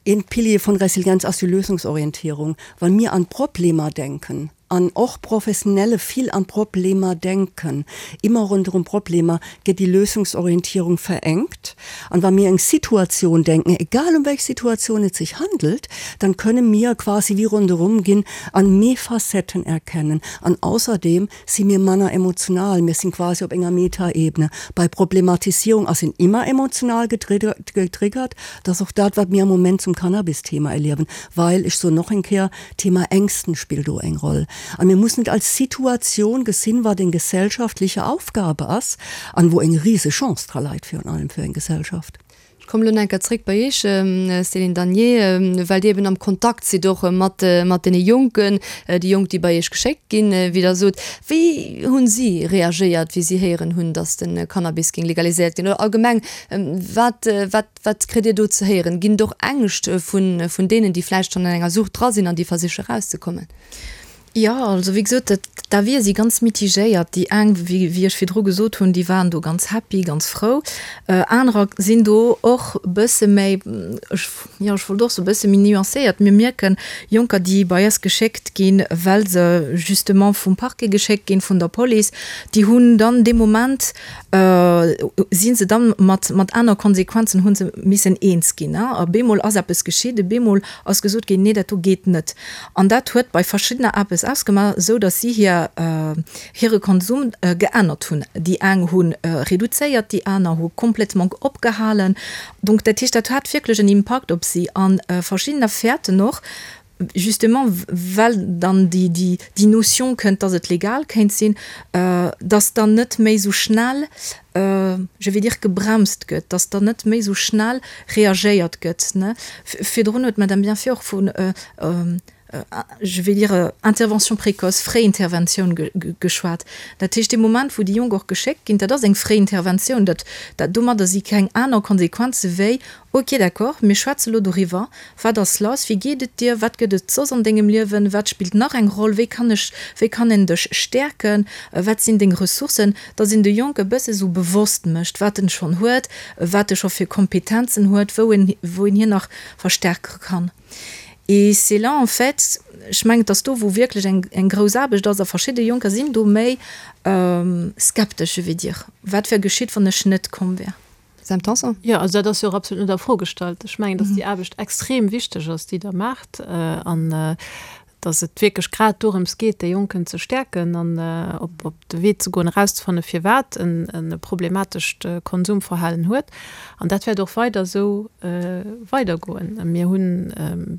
Een Pilier vun Resilienz ass déi Lösungsorientierung. Wa mir an d'Problemer denken, an och Professionelle vill an d'Problemer denken, immer ronderëm Problemer, gëtt déi Lösungsorientierung verengt. An wa mir eng Situatioun denken, egal um welch Situatioun et sich handelt, dann kënne mir quasi wie ronderëm ginn an méi Facetten erkennen. An ausserdem si mir manner emotional, mir sinn quasi op enger Metaebene. Bei Problematisierung ass een immer emotional getriggert, dat ass och dat, wat mir am Moment zum Cannabis-Thema erliewen, well, ech soen noch eng Kéier, Thema Ängsten spillt do eng Roll. A mir mussen et als Situatioun gesinn, wat eng gesellschaftliche Aufgabe ass an wou eng rise Chance dra leit virun allem fir eng Gesellschaft. Ech kommen elo nach eng Kéier zréck bei Iech, Céline Danier, well Dir eben am Kontakt sidd och mat mat deene Jonken, déi Jonk, déi bei Iech geschéckt ginn, wéi Der sot. Wéi hunn si reagéiert, wéi si héieren hunn, datt de Cannabis géing legaliséiert ginn? Oder allgemeng, wat wat wat kritt Dir do ze héieren? Ginn et och Ängscht vun vun deenen, déi vläicht schonn an enger Sucht dra sinn an déi versiche erauszekommen? Jo, also wéi gesot, dat d'Avisë si ganz mitigéiert. Déi eng, wéi wéi ech virdru gesot hunn, déi waren do ganz happy, ganz frou. Anerer sinn do och e bësse méi, ech, jo, ech wollt och soe bësse méi nuancéiert. Mir mierken, Jonker, déi bei eis geschéckt ginn, well se justement vum Parquet geschéckt ginn, vun der Police, déi hunn dann dee Moment, si se dann mat mat aner Konsequenzen hu se missen eens ginn. A bemol ass eppes geschitt, bemol ass gesot ginn, nee, dat do geet net. An dat huet bei verschiddener eppes ausgemaach, esou datt si hir hire Konsum geännert hunn. Déi eng hu reduzéiert, déi aner hu complètement opgehalen. Donc dat heescht, dat hat wierklech en Impakt op si. A verschiddener fäerten och, justement well dann déi déi déi Notion kënnt, datt et legal kéint sinn, datt dann net méi esou schnell, je vais dire, gebremst gëtt, datt dann net méi esou schnell reagéiert gëtt. Virdrun huet d'Madame Bienfait och vun, je vais dire, Intervention précoce, Fréinterventioun geschwat. Dat heescht, dee Moment, wou déi Jonk och geschéckt ginn, dat ass eng Fréinterventioun, dat, dat, domadder si keng aner Konsequenze wéi, Ok, d'accord, mir schwätze lo doriwwer. Wat ass lass? Wéi geet et dir? Wat gëtt et soss an dengem Liewen? Wat spillt nach eng Roll? Wéi kann ech, wéi kann een dech stäerken? Wat sinn deng Ressourcen? Dass een de Jonk e bësse sou bewosst mécht, wat en schonn huet, wat e scho fir Kompetenzen huet, wou en, wou een hien nach verstärke kann. Et c'est là en fait, ech mengen, et ass do, wou wierklech eng, eng grouss Aarbecht ass a verschidde Jonker sinn do méi skeptesch, je vais dire. Wat wär geschitt, wann ech net komm wär? Sam Tanson? Jo, also dat ass jo och absolut net a Fro gestallt. Ech mengen, datt déi Aarbecht extrem wichteg ass, déi Der maacht. An. Dass et wierklech grad dorëms geet, déi Jonken ze stäerken an op op de Wee ze goen, erauszefanne firwat en e problematescht Konsumverhalen huet. An dat wäert och weider esou weidergoen. Mir hunn,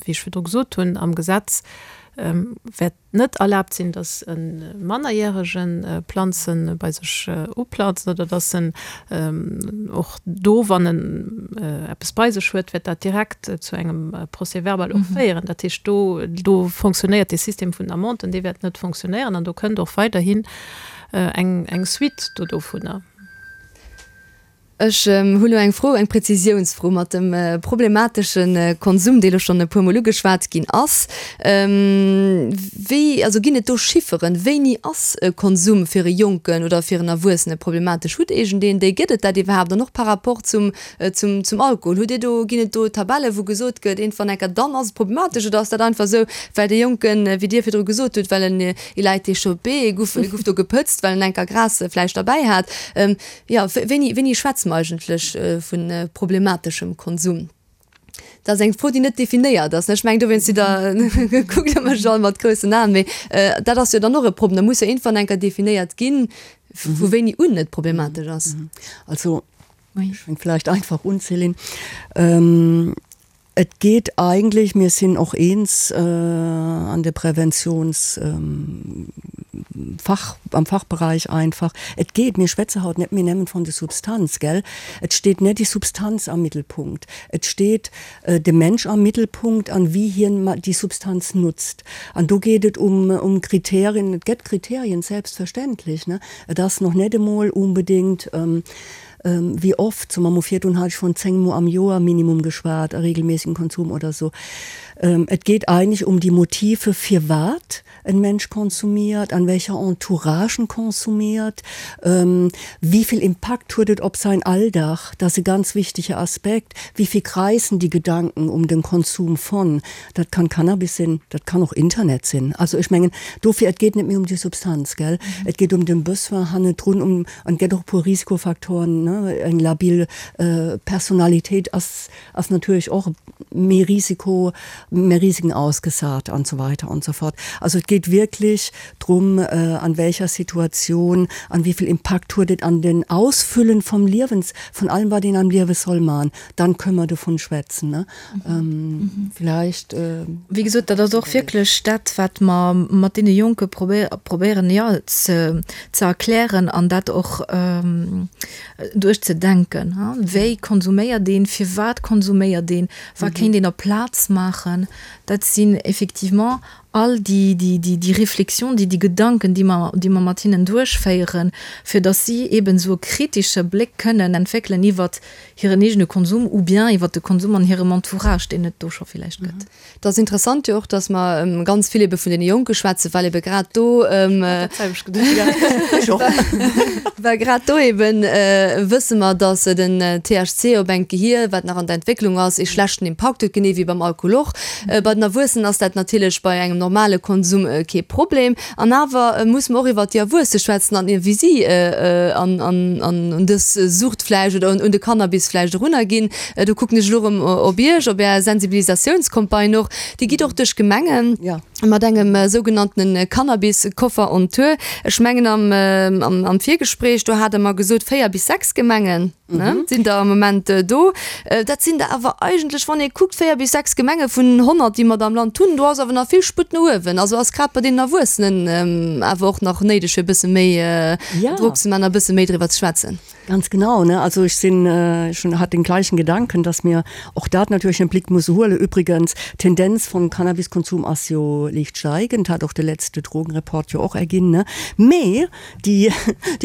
wéi ech virdru gesot hunn, am Gesetz wäert net erlaabt sinn, datt e Mannerjärege Planze bei sech uplanzt oder datt en och do, wann en eppes bei sech huet, wäert dat direkt zu engem Procès-verbal och féieren. Dat heescht, do, do fonctionnéiert dee System vun den Amenden, dee wäert net fonctionnéieren an do kënnt och weiderhin eng, eng Suite do dovunner. Ech hu lo eng Fro, eng Präzisiounsfro mat dem problematesche Konsum, dee lo schonn e puermol ugeschwat ginn ass. Wéi, also ginn et do Chifferen, wéini ass e Konsum fir e Jonken oder fir en Erwuessene problematesch? Hutt iergendeen déi? Gëtt et dat iwwerhaapt? An och par rapport zum, zum, zum Alkohol, hutt Dir do, ginn et do Tabellen, wou gesot gëtt, iergendwann enker dann ass et problematesch? Oder ass dat einfach esou, well dee Jonken, wéi Dir virdru gesot hutt, well en, il a été chopé, e guff, e guff do gepëtzt, well en enker Gras vläicht derbäi hat? Jo, wéini, wéini schwätze mer eigentlech vu problemateschem Konsum? Dat ass eng Fro, déi net definéiert ass. Ech mengen, dowéinst sidd Der, kuckt Der mech all mat groussen Aen, mee dat ass jo dann och e Problem. Da muss jo iergendwann eng Kéier definéiert ginn, vu wéini un et problematesch ass. Also, ech fänk vläicht einfach un, Céline. Et geet eigentlech, mir sinn och eens an de Präventionsfach, am Fachbereich einfach, et geet, mir schwätze haut net méi nëmmen von der Substanz, gell? Et steet net déi Substanz am Mittelpunkt, et steet de Mensch am Mittelpunkt an wéi hien déi Substanz nutzt. An do geet et um um Kriterien, et gëtt Kriterien, selbstverständlech, ne? Et ass noch net emol unbedingt, Wéi oft, so mam virdrun hat ech vun 10 Mo am Joer Minimum geschwat, a regelmäßigen Konsum oder so. Et geet eigentlech um déi Motive firwat en Mensch konsumiert, an welcher Entourage en konsumiert, wéi vill Impakt huet et op säin Alldag, dat ass e ganz wichtege Aspekt, wéi vill kreisen déi Gedanken um den Konsum von, dat kann Cannabis sinn, dat kann och Internet sinn. Also ech mengen dofir, et geet net méi um déi Substanz, gell, et geet um den Besoin hannendrun, um An et gëtt och e puer Risikofaktoren, ne, eng labil Personalitéit ass, ass natierlech och méi Risiko, méi Risiken ausgesat an esou weiter an esou fort. Also et geet wierklech drum, an welcher Situation, an wéi vill Impakt huet et an den Ausfüllen vom Liewens, von allem wat een am Liewe soll man, dann kënne mer dovun schwätzen, ne. Vielleicht. Wéi gesot, dat ass och wierklech dat, wat mer mat deene Jonke probéieren, jo, ze erklären an dat och duerchzedenken. Wéi konsuméiert een? Firwat konsuméiert een? Wat kéint een aplaz maachen? Dat sinn effectivement all déi, déi Reflexion, déi, déi Gedanken, déi mer, déi mer mat hinnen duerchféieren, fir datt si eeben esou e kritesche Bléck kënnen entwéckelen iwwert hiren eegene Konsum ou bien iwwert de Konsum an hirem Entourage, deen et do scho villäicht gëtt. Et ass interessant jo och, datt mer ganz vill ebe vun deene Jonke schwätzen, well ebe grad do, well grad do eben wësse mer, datt den THC op engt Gehier, wat nach an der Entwécklung ass, ee schlechten Impakt huet, genee wéi beim Alkohol och. Bei den Erwuessenen ass dat natierlech bei engem normale Konsum kee Problem. An awer musse mer och iwwert déi Erwuesse schwätzen an wéi si an un dës Sucht vläicht oder un de Cannabis vläicht erunnerginn. Do kucken ech elo erëm op Iech, op Är Sensibilisatiounscampagne och. Déi geet och duerch d'Gemengen mat engem sougenanntene Cannabis-Koffer on Tour. Ech mengen am Virgespréich, do hat Der mer gesot, 4 bis 6 Gemengen. Ne, sinn der am Moment do. Dat sinn der awer eigentlech, wann ee kuckt, 4 bis 6 Gemenge vun 100, déi mer da am Land hunn. Do ass awer nach vill Sputt no uewen. Also ass grad bei deenen Erwuessenen awer och nach néideg, fir e bësse méi Drock ze maachen a e bësse méi driwwer ze schwätzen. Ganz genau, ne. Also ech sinn, ech hunn, hat den gleichen Gedanken, dass mir och dat natierlech am Blick musse huelen. Übrigens, d'Tendenz vum Cannabiskonsum ass jo liicht steigend, hat och de letzte Drogenreport jo och erginn, ne. Mee Déi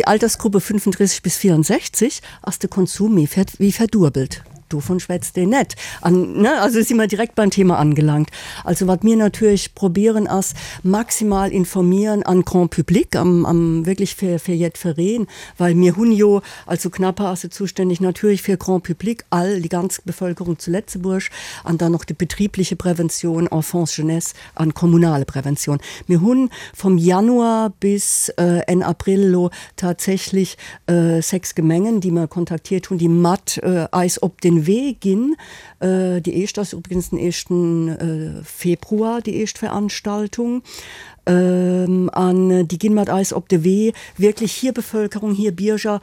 Altersgruppe 35 bis 64 ass de Konsum méi wéi verduebelt. Dovun schwätzt een net. An, ne, also si mer direkt beim Thema angelangt. Also wat mir natierlech probieren ass, maximal informieren an Grand public, am, am wierklech fir, fir jiddwereen, well mir hunn jo, also CNAPA ass jo zuständig natierlech fir Grand public, all, déi ganz Bevölkerung zu Lëtzebuerg, an dann och déi betriebliche Prävention, Enfance, Jeunesse, an kommunale Prävention. Mir hunn vom Januar bis Enn April elo tatsächlich 6 Gemengen, déi mer kontaktiert hunn, déi mat eis op den. den Wee ginn. Déi éischt ass übrigens den éischten Februar, déi éischt Veranstaltung. An déi ginn mat eis op de Wee, wierklech hir Bevölkerung, hir Bierger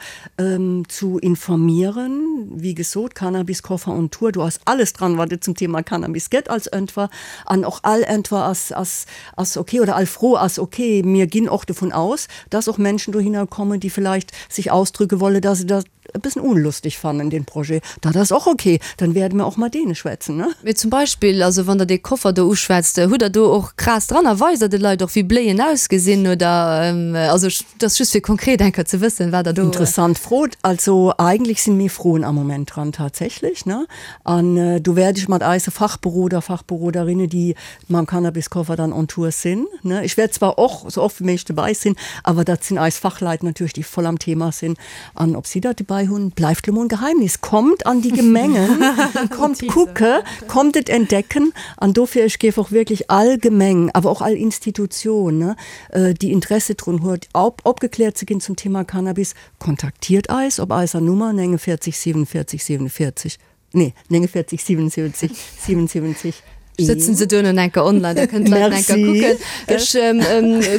zu informieren. Wéi gesot, Cannabiskoffer on Tour, do ass alles dran, wat et zum Thema Cannabis gëtt als Äntwer. An och all Äntwer ass, ass, ass ok oder all Fro ass ok. Mir ginn och dovun aus, dass och Menschen dohinner kommen, déi vielleicht sich ausdrücke wolle, dass se dat e bëssen unlustig fannen, den Projet. Dat ass och ok, dann wäerde mer och mat deene schwätzen, ne? Mee zum Beispill, also wann Der dee Koffer do uschwätzt, hutt Der do och Gras dran a weist Der de Leit och, wéi Bléien ausgesinn oder? Also et ass just fir konkret eng Kéier ze wëssen, wat Der do. Interessant Fro. Also eigentlech sinn méi Froen am Moment dran tatsächlich, ne? An do wäert ech mat eise Fachberoder, Fachberoderinne, déi mam Cannabiskoffer dann on Tour sinn, ne, ech wäert zwar och sou oft wéi méiglech dobäi sinn, awer dat sinn eis Fachleit natierlech, déi voll am Thema sinn. An ob si dat dobäi hunn, bleift lo mol en Geheimnis. Kommt an déi Gemengen, kommt kucke, kommt et entdecken. An dofir, ech géif och wierklech all Gemeng, awer och all Institution, ne, déi Interesse drun huet, opgekläert ze ginn zum Thema Cannabis, Kontaktiert eis op eiser Nummer 49 47 47, nee 49 77 77 1. Sëtzen se duerno enker online, da kënnen d'Leit enker kucken. Ech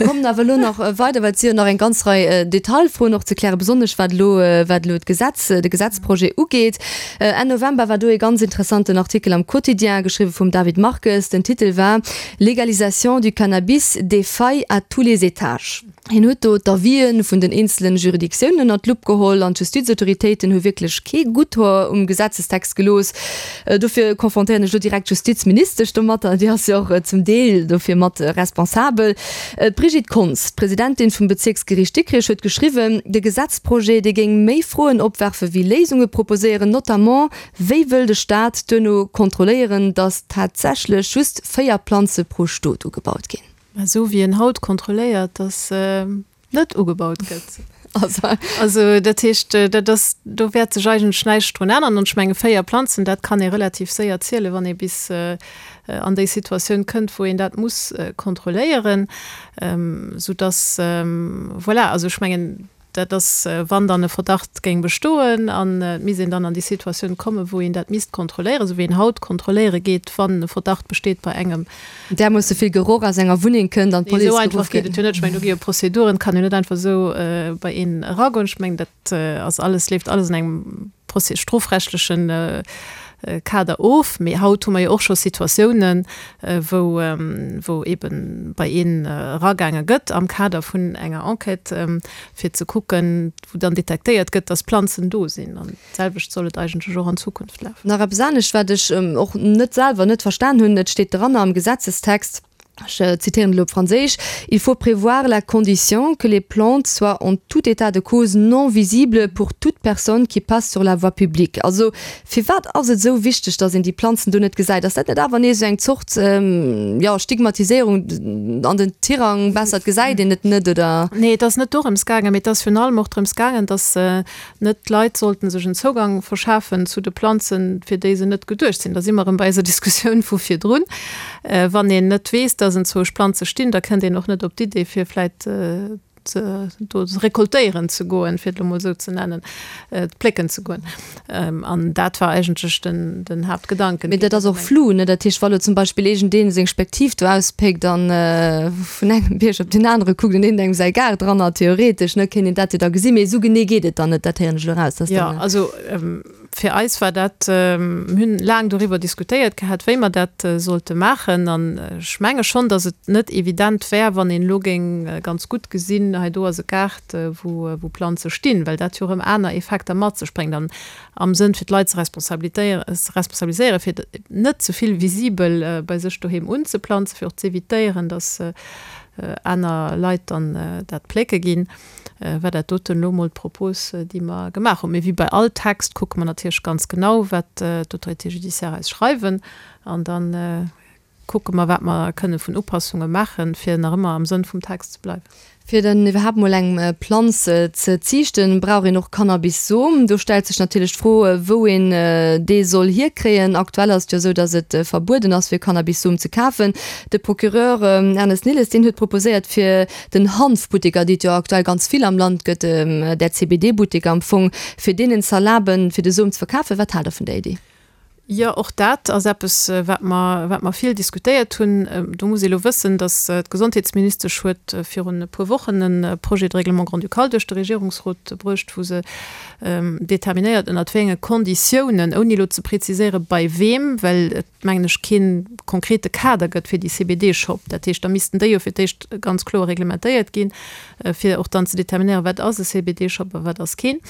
kommen awer elo nach weider, well et si jo nach eng ganz Rei Detailfroen och ze klären, besonnesch wat elo, wat elo d'Gesetz, de Gesetzprojet ugeet. Enn November war do ee ganz interessanten Artikel am Quotidien, geschriwwe vum David Marques. Den Titel war Légalisation du cannabis, des failles à tous les étages. Hien huet do d'Avisë vun den eenzelen Juridictiounen ënnert d'Lupp geholl an d'Justizautoritéiten hu wierklech kee gutt Hoer um Gesetzestext gelooss. Dofir confrontéieren ech elo direkt d'Justizministesch domatter, déi ass jo och zum Deel dofir mat responsabel. D'Brigitte Konz, d'Presidentin vum Bezierksgeriicht Dikrech, huet geschriwwen, de Gesetzprojet, dee géing méi Froen opwerfe wéi Léisunge proposéieren, notamment, wéi wëll de Staat duerno kontrolléieren, datt tatsächlech just 4 Planze pro Stot ugebaut ginn. Esou wéi en haut kontrolléiert, datt net ugebaut gëtt. Also dat heescht, dat ass, do wäert sech eigentlech näischt drun änneren. An ech menge 4 Planzen, dat kann ee relativ séier zielen, wann ee bis an déi Situatioun kënnt, wou een dat muss kontrolléieren, soudass, voilà, also ech mengen, Dat ass, wann dann e Verdacht géing bestoen an et misst een dann an déi Situatioun kommen, wou een dat misst kontrolléieren, esou wéi een haut kontrolléiere geet, wann e Verdacht besteet bei engem. Därmoosse vill Geroch aus enger Wunneng kënnt an d'Police geruff gëtt. Esou einfach geet et jo net. Ech mengen, do gi jo Prozeduren, et kann jo net einfach esou bei een eragoen. Ech mengen, dat ass alles, leeft alles an engem strofrechtlechen Kader of. Mee haut hu mer jo och scho Situatiounen, wou, wou eebe bei een eragaange gëtt am Kader vun enger Enquête, fir ze kucken, wou dann detektéiert gëtt, dass Planzen do sinn. An d'selwecht soll et eigentlech och an Zukunft lafen. Nach eppes anescht, wat ech och net selwer net verstan hunn, Et steet dran am Gesetzestext, ech zitieren elo op Franséisch, Il faut prévoir la condition que les plantes soient en tout état de cause non visibles pour toute personne qui passe sur la voie publique. Also firwat ass et esou wichteg, datt een déi Planzen do net gesäit? Ass dat net awer nees esou eng Zort, jo, Stigmatiséierung an den Tirang, besser et gesäit een et net, oder? Nee, et ass net dorëms gaangen, mee et ass virun allem och drëms gaangen, datt net d'Leit sollten sech en Zougang verschafen zu de Planzen, fir déi se net geduecht sinn. Da si mer erëm bei eiser Diskussioun vu virdrun. Wann een net weess, dass enzwousch Planze stinn, da kënnt een och net op d'Idee, fir vläit do rekoltéieren ze goen, fir et elo mol esou ze nennen, plécken ze goen. An dat war eigentlech den, den Haaptgedanken. Mee dat ass och flou, ne? Dat heescht, wa lo zum Beispill iergendeen seng Spektiv do auspéckt an vun engem Bierg op deen anere kuckt an iergendengem säi Gaart dran hat, theoretesch, ne, kéint een dat jo da gesinn. Mee esou genee geet et dann net, dat héieren ech elo eraus, dass dann. Jo, also fir eis war dat, mir hunn laang doriwwer diskutéiert gehat, wéi mer dat sollte maachen. An ech menge schonn, dass et net evident wär, wann een elo géing ganz gutt gesinn, hei do ass e Gaart, wou wou Planze stinn, well dat jo erëm aner Effekter mat sech bréngt. An am Sënn fir d'Leit ze responsabiliséieren, fir net ze vill visibel bei sech doheem unzeplanzen, fir och z'evitéieren, dass aner Leit dann dat plécke ginn, war dat doten elo emol d'Propos, déi mer gemaach hunn. Mee wéi bei all Text kucke mer natierlech ganz genau, wat d'Autorités judiciaires eis schreiwen, an dann Kucke mer, wat mer kënne vun Upassunge maachen, fir nach ëmmer am Sënn vum Text ze bleiwen. Fir dann iwwerhaapt mol eng Planz ze ziichten, brauch een och Cannabis-Som. Do stellt sech natierlech d'Fro, wou een dee soll hierkréien. Aktuell ass et jo esou, datt et verbueden ass, fir Cannabis-Som ze kafen. De Procureur Ernest Nilles, deen huet proposéiert, fir den Hanfbutteker, déi et jo aktuell ganz vill am Land gëtt, där CBD-Butteker am Fong, fir deenen z'erlaben, fir de Som ze verkafen. Wat haalt Der vun där Idee? Jo, och dat ass eppes, wat mer, wat mer vill diskutéiert hunn. Do muss ee elo wëssen, datt d'Gesondheetsministesch huet virun e puer Wochen e Projet de règlement grand-ducal duerch de Regierungsrot bruecht, wou se determinéiert, ënnert wéi enge Konditiounen, ouni elo ze preziséiere bei weem, well et, mengen ech, kee konkrete Kader gëtt fir déi CBD-Shop. Dat heescht, da missten déi jo fir d'éischt ganz kloer reglementéiert ginn, fir och dann ze determinéieren, wat ass e CBD-Shop a wat ass keen.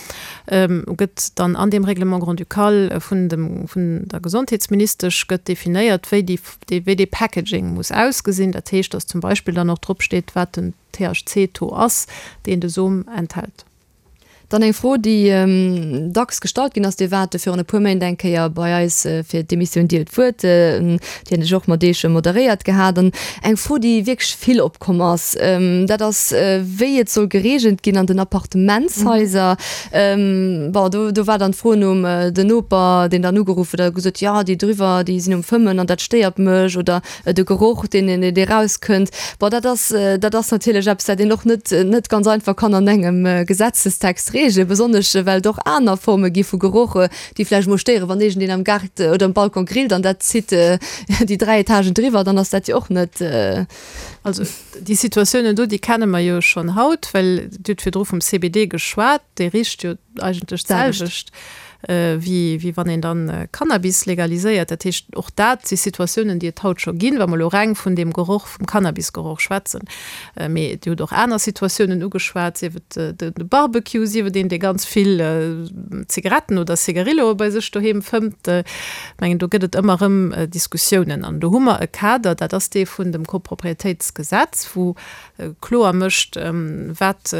gëtt dann an deem Règlement grand-ducal vun dem, vun der Gesondheetsministesch gëtt definéiert, wéi déi, wéi dee Packaging muss ausgesinn. Dat heescht, dass zum Beispill dann och drop steet, wat den THC-Taux ass, deen de Som enthält. Dann eng Fro, déi dacks gestallt ginn ass, Dir waart virun e puer Méint eng Kéier bei eis fir d'Emissioun Dir huet d'Wuert, déi hunn ech och mat Iech moderéiert gehat. An eng Fro, déi wierklech vill opkomm ass, dat ass, wéi et soll gereegelt ginn an den Appartementshaiser. Bon, do, do war dann d'Fro nom den Noper, deen dann ugeruff huet a gesot, jo, déi driwwer, déi sinn um Fëmmen an dat stéiert mech oder de Geroch, deen, dee rauskënnt. Bon, dat ass, dat ass natierlech eppes, dat een och net, net ganz einfach kann an engem Gesetzestext reegelen, besonnesch well et och aner Forme gi vu Geroch, déi vläicht mol stéieren, wann iergendeen am Gaart oder um Balcon grillt an dat zitt déi 3 Etagen driwwer, dann ass dat jo och net. Also déi Situatiounen do, déi kenne mer jo schonn haut, well Dir hutt virdru vum CBD geschwat, dee richt jo eigentlech d'selwecht wéi wéi wann een dann Cannabis legaliséiert. Dat heescht, och dat si Situatiounen, déi et haut scho ginn, wa mer elo reng vun deem Geroch, vum Cannabisgeroch schwätzen. Mee Dir hutt och aner Situatiounen ugeschwat, sief et de Barbecue, sief et een, dee ganz vill Zigaretten oder Cigarilloe bei sech doheem fëmmt. Ech mengen, do gëtt et ëmmer erëm Diskussiounen. An do hu mer e Kader, dat ass dee vun dem Koproprietéitsgesetz, wou kloer mécht, wat,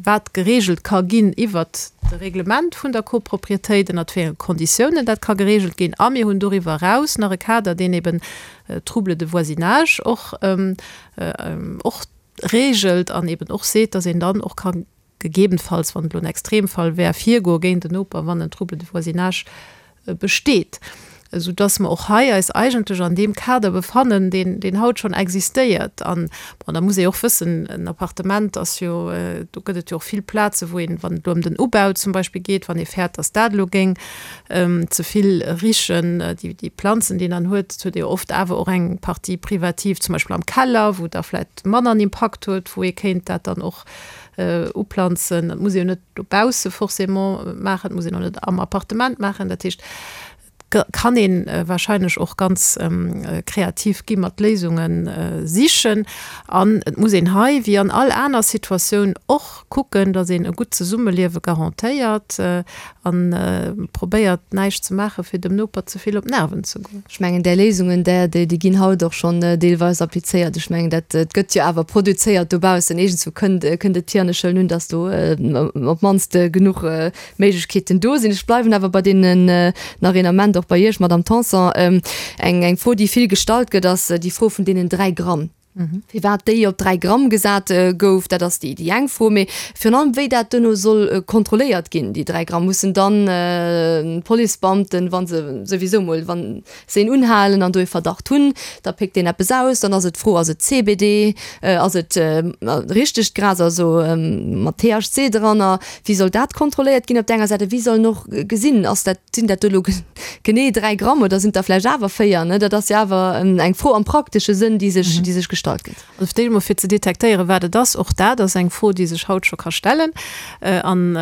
wat geregelt ka ginn iwwert de Reglement vun der Koproprietéit, ënnert wéi enge Konditiounen dat ka geregelt ginn. A mir hunn doriwwer eraus nach e Kader, deen eben Troubles de voisinage och, och regelt an eben och seet, dass een dann och ka gegebenfalls, wann et elo en Extremfall wär, virgoe géint en Noper, wann en Trouble de voisinage besteet, esou dass mer och hei eis eigentlech an deem Kader befannen, deen, deen haut schonn existéiert. An, bon, da muss ee och wëssen, en Appartement ass jo, do gëtt et jo och vill Plaze wou een, wann et elo ëm den Ubau zum Beispill geet, wann ee fäert, dass dat elo géing ze vill richen, déi, déi Planzen, déi een dann huet, et huet ee jo oft awer och eng Partie privative, zum Beispill am Keller, wou da vläicht manner en Impakt huet, wou ee kéint dat dann och uplanzen. Dat muss ee jo net dobausse forcément maachen, dat muss een och net am Appartement maachen. Dat heescht, et kann ee wahrscheinlech och ganz kreativ gi mat Léisunge sichen. An et muss een hei, wéi an all aner Situatioun och, kucken, datt een e gutt Zesummeliewe garantéiert a probéiert, näischt ze maachen, fir dem Noper ze vill op d'Nerven ze goen. Ech mengen, där Léisungen, där, déi ginn haut och schonn deelweis applizéiert. Ech mengen, dat gëtt jo awer produzéiert dobaussen. Iergendzwou kënnt, kënnt et hier an ech huelen un, datt do op d'mannst genuch Méiglechkeeten do sinn. Ech bleiwen awer bei deenen nach een Ament, och bei Iech, Madamm Tanson. Eng, eng Fro, déi vill gestallt gëtt, ass déi Fro vun deenen 3 Gramm. Firwat déi op 3 Gramm gesat gouf, dat ass déi eng Fro. Mee virun allem, wéi dat duerno soll kontrolléiert ginn, déi 3 Gramm. Mussen dann d'Policebeamten, wa se souwisou mol, wa se een unhalen an do ee Verdacht hunn, da péckt deen eppes aus, dann ass et d'Fro, ass et CBD, ass et richtegt Gras, also mat THC dranner, Wéi soll dat kontrolléiert ginn op der enger Säit a wéi soll en och gesinn, ass dat, sinn dat do elo genee 3 Gramm oder sinn et der vläicht awer 4, ne? Dat ass jo awer eng Fro am praktesche Sënn, déi sech, déi sech gestallt gëtt. Also fir d'éischt emol fir ze detektéieren, wat et ass, och dat ass eng Fro, déi sech haut scho ka stellen. An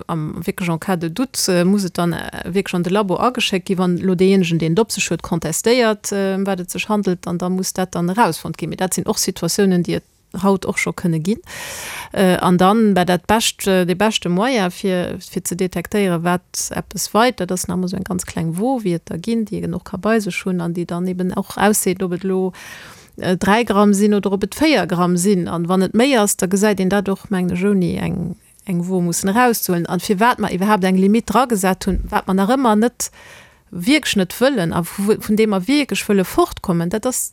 am wierklech en cas de doute muss et dann wierklech an de Labo ageschéckt ginn, wann elo deejéinegen, deen et op sech huet, contestéiert, ëm wat et sech handelt, an da muss dat dann erausfonnt ginn. Mee dat sinn och Situatiounen, déi et haut och scho kënne ginn. An dann, bah, dat bescht, dee beschte Moyen fir, fir ze detektéieren, wat eppes weit, dat ass nach emol esou eng ganz kleng Wo, wéi et der ginn, déi een och ka bei sech hunn an déi dann eben och ausseet, ob et elo 3 Gramm sinn oder ob et 4 Gramm sinn. An wann et méi ass, da gesäit een dat och, mengen ech, ouni eng, eng Wo mussen erauszehuelen. An firwat mer iwwerhaapt eng Limite dragesat hunn, wat mer nach ëmmer net, wierklech net wëllen a vun deem mer wierklech wëlle fortkommen, dat ass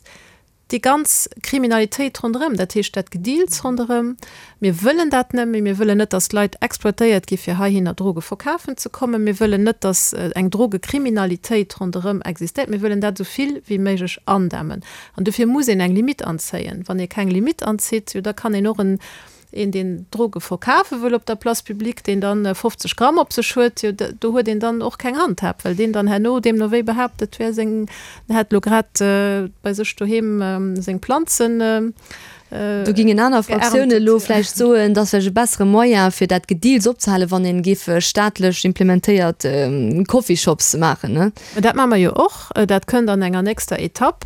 Déi ganz Kriminalitéit ronderëm, dat heescht dat Gedeals ronderëm, mir wëllen dat net méi. Mir wëllen net, datt Leit exploitéiert gi fir heihinner Droge verkafen ze kommen. Mir wëllen net, datt eng Drogekriminalitéit ronderëm existéiert. Mir wëllen dat esou vill wéi méiglech andämmen. An dofir muss een eng Limite anzéien. Wann ee keng Limite anzitt, jo da kann een och en. Een, deen Droge verkafe wëll op der Place publique, deen dann 50 Gramm op sech huet, jo, do huet een dann och keng Handhab, well deen dann herno deemno wéi behaapt, et wär seng, en hätt elo grad bei sech doheem seng Planzen Do gingen aner Fraktiounen elo vläicht soen, dass vläicht e bessere Moyen, fir dat Gedeals opzehalen, wann een géif staatlech implementéiert Coffeeshops maachen, ne? Mä dat maache mer jo och. Dat kënnt an enger nächster Etapp.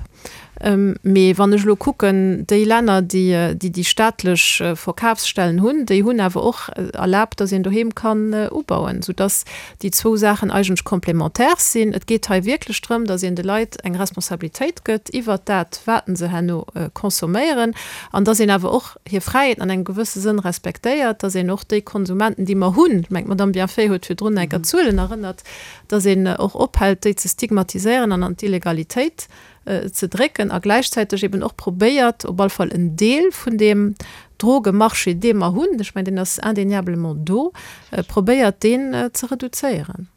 Mee wann ech elo kucken, déi Länner, déi déi staatlech Verkafsstellen hunn, déi hunn awer och erlaabt, datt een doheem kann ubauen, soudatt déi zwou Saachen eigentlech complémentaires sinn. Et geet hei wierklech drëm, datt een de Leit eng Responsabilitéit gëtt iwwert dat, wat se herno consomméieren, an datt een awer och hir Fräiheeten an engem gewësse Sënn respektéiert, datt een och déi Konsumenten, déi mer hunn, ech mengen, d'Madame Bienfait huet virdrun enker d'Zuelen erënnert, datt een och ophält, déi ze stigmatiséieren an an d'Illegalitéit ze drécken a gläichzäiteg eben och probéiert, op alle Fall en Deel vun deem Drogemarché, dee mer hunn, ech mengen, deen ass indéniablement do, probéiert deen ze reduzéieren.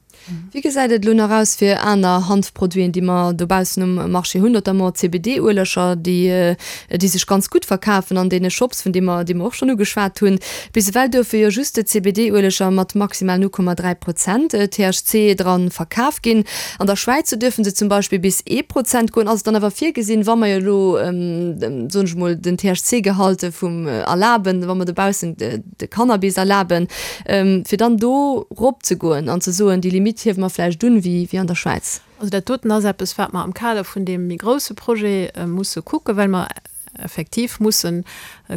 Wéi gesäit et elo nach aus fir aner Hanfproduiten, déi mer dobaussen um Marché hunn, notamment CBD-Ueleger, déi, déi sech ganz gutt verkafen an deene Shops, vun deem mer, déi mer och schonn ugeschwat hunn? Bis ewell duerfe jo just CBD-Ueleger mat maximal 0,3 Prozent THC dran verkaf ginn. An der Schwäiz, do duerfe se zum Beispill bis ee Prozent goen. Ass et dann awer virgesinn, wa mer jo elo, soen ech emol, den THC-Gehalt vum erlaben, wa mer dobaussen de Cannabis erlaben, fir dann do ropzegoen an ze soen, déi Limitt hiewe mer vläicht un, wéi an der Schwäiz? Also dat doten ass eppes, wat mer am Kader vun deem méi grouse Projet musse kucken, well mer effektiv mussen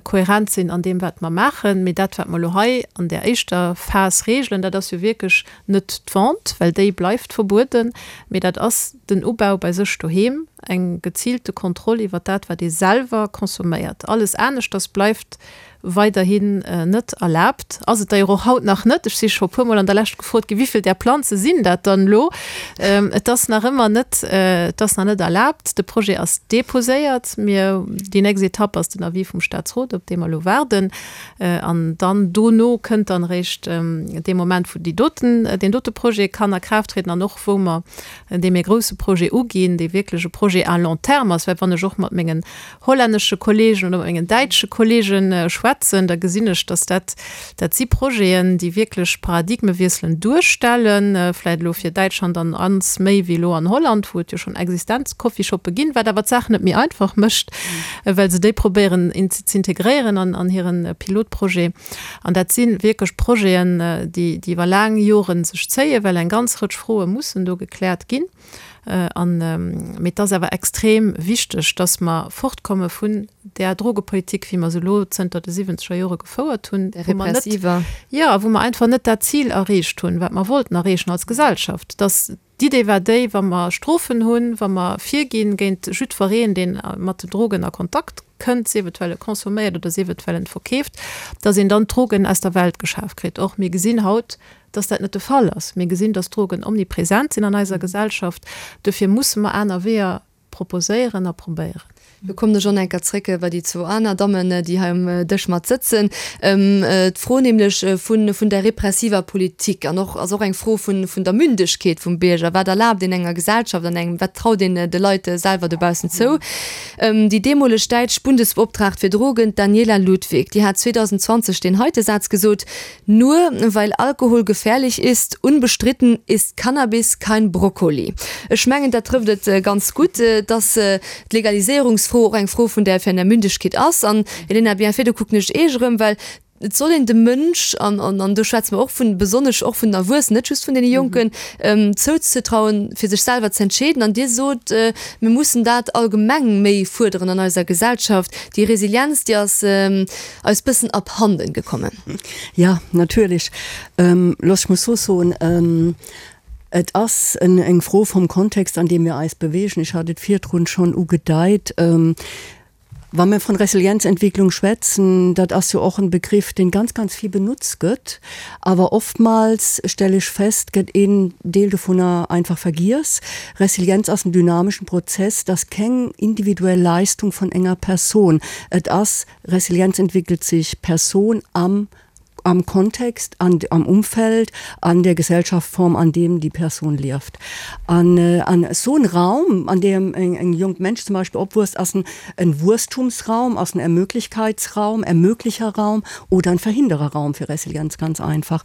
kohärent sinn an deem, wat mer maachen. Mee dat, wat mer elo hei an där éischter Phas regelen, dat ass jo wierklech net d'Vente, well déi bleift verbueden, mee dat ass den Ubau bei sech doheem, eng geziilte Kontroll iwwert dat, wat ee selwer consomméiert. Alles aneschters bleift weiderhin net erlaabt. Ass et d'ailleurs och haut nach net. Ech si scho puermol an der Lescht gefrot ginn, Wéivill där Planze sinn dat dann elo? Et ass nach ëmmer net, et ass nach net erlaabt. De Projet ass deposéiert. Mir, déi nächst Etapp ass den Avis vum Statsrot, op dee mer elo waarden. An dann dono kënnt dann eréischt dee Moment, wou déi doten, deen dote Projet kann a Kraaft trieden an och wou mer dee méi grouse Projet uginn, dee wierklech e Projet à long terme ass. Well wann ech och mat mengen hollännesche Kollegen oder mat mengen däitsche Kollege schwätzen, da gesinn ech, dass dat, dat si Projeten, déi wierklech Paradigmewiesselen duerstellen, vläicht elo fir Däitschland an ans méi wéi elo an Holland, wou et jo schonn existent Coffeeshoppe ginn, wat awer d'Saach net méi einfach mécht, well se déi probéieren z'integréieren an hire Pilotprojet. An dat si wierklech Projeten, déi iwwer laang Jore sech zéien, well eng ganz Rëtsch Froe mussen do gekläert ginn. An, mee et ass awer extrem wichteg, dass mer fortkomme vun där Drogepolitik, wéi mer se elo zënter de siwwenzeger Jore gefouert hunn, Där wou mer net, repressiver. jo, wou mer einfach net dat Zil erreecht hunn, wat mer wollten erreechen als Gesellschaft. Dass d'Idee war déi, wa mer Strofen hunn, wa mer virginn géint jiddwereen, deen mat den Drogen a Kontakt kënnt, sief et well e consomméiert oder sief et well en verkeeft, dass een dann d'Drogen aus der Welt geschaf kritt. Or, mir gesinn haut, dass dat net de Fall ass. Mir gesinn, dass Drogen omnipresent sinn an eiser Gesellschaft. Dofir musse mer aner Weeër proposéieren a probéieren. Lo kommen ech och nach eng Kéier zréck bei déi zwou aner Dammen, déi hei um Dësch mat sëtzen. D'Fro nämlech vun, vun der repressiver Politik an och, ass och eng Fro vun, vun der Mündegkeet vum Bierger. Wat erlaabt een enger Gesellschaft an engem, wat traut een de Leit selwer dobaussen zou? Déi deemoleg däitsch Bundesbeoptraagt fir Drogen, d'Daniela Ludwig, déi hat 2020 deen heite Saz gesot, Nur weil Alkohol gefährlich ist, unbestritten ist Cannabis kein Brokkoli. Ech mengen, dat trëfft et ganz gutt, dass d'Legaliséierungsfro och eng Fro vun der vun der Mündegkeet ass. An, Elena Bienfait, do kucken ech Iech erëm, well et soll een dem Mënsch, an, an do schwätze mer och vun, besonnesch och vun den Erwuessenen, net just vun deene Jonken, zouzetrauen, fir sech selwer ze entscheeden. An Dir sot, mir mussen dat allgemeng méi fuerderen an eiser Gesellschaft. Déi Resilienz, déi ass eis bëssen abhanden gekommen. Ja, natierlech. Looss ech mol sou soen, Et ass eng Fro vum Kontext, an deem mir eis bewegen. Ech hat et virdrun schonn ugedeit. Wa mir von Resilienzentwicklung schwätzen, dat ass jo och en Begriff, deen ganz, ganz vill benutzt gëtt. Awer oftmals, stelle ech fest, gëtt een Deel dovunner einfach vergiess. Resilienz ass en dynameschen Prozess, dat ass keng individuell Leistung von enger Person. Et ass, Resilienz entwickelt sich Person am. am Kontext, an, am Umfeld, an der Gesellschaftsform, an dem die Person lieft. An, an esou en Raum, an deem eng, eng jonk Mensch zum Beispill opwuesst, ass en, en Wuesstumsraum, ass en Ermöglichkeitsraum, Ermöglicherraum oder en Verhindererraum fir Resilienz, ganz einfach.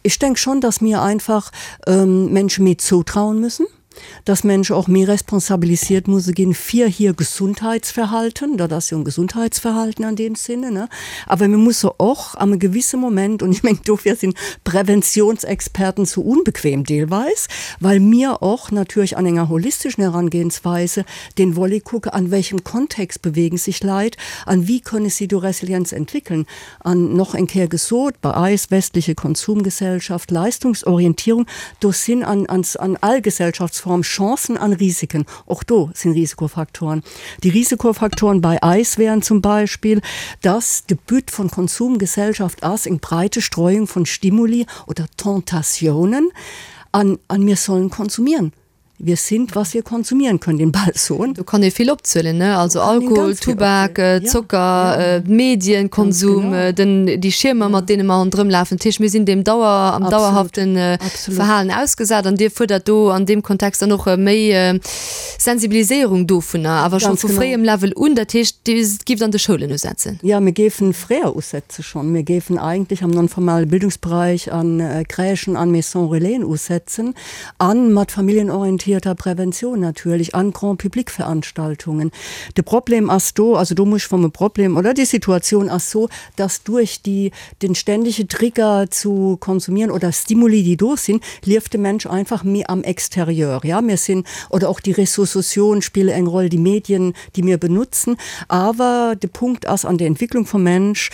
Ech denk schon, dass mir einfach Menschen méi zoutrauen müssen, dass Menschen och méi responsabilisiert musse ginn fir hir Gesundheitsverhalten, dat ass jo en Gesundheitsverhalten an deem Sinne, ne? Awer mir musse och am e gewisse Moment, und ech mengen dofir sinn Präventionsexperten sou unbequem deelweis, well mir och natierlech an enger holisteschen Herangehensweise den Volet kucke, an welchem Kontext bewegen sich Leit an wie könne sie do Resilienz entwickeln. An noch eng Kéier gesot, bei eis, westliche Konsumgesellschaft, Leistungsorientierung, do sinn an an all Gesellschaftsform Chancen an Risiken. Och do sinn Risikofaktoren. Déi Risikofaktoren bei eis wären zum Beispill, dass de But von Konsumgesellschaft ass eng breite Streuung von Stimuli oder Tentatiounen an an mir sollen konsumieren. Wir sind, was wir konsumieren können, den Ball soen. Do kann ee vill opzielen, ne? Also Alkohol, Tubak, Zocker, Medienkonsum, den, déi Schiermer, mat deene mer ronderëm lafen. Dat heescht, mir sinn deem Dauer, am dauerhafte Verhalen ausgesat. An Dir fuerdert do an deem Kontext dann och méi Sensibiliséierung dovunner, awer scho vu fréiem Level un. Dat heescht, Dir gift an de Schoulen usetzen? Jo, mir géifen fréier usetze schonn. Mir géifen eigentlech am non-formale Bildungsbereich an Crèchen, an Maisons Relaisen usetzen. An mat familienorientierter Prävention natierlech, an Grand-public-Veranstaltungen. De Problem ass do, also do muss ech vom e Problem, oder déi Situatioun ass so, dass duerch déi, den ständige Trigger zu konsumieren oder Stimuli, déi do sinn, lieft de Mensch einfach méi am Exterieur. Ja, mir sinn, oder och déi Réseaux sociaux spille eng Roll, déi Medien, déi mir benutzen. Awer de Punkt ass an der Entwicklung vum Mensch,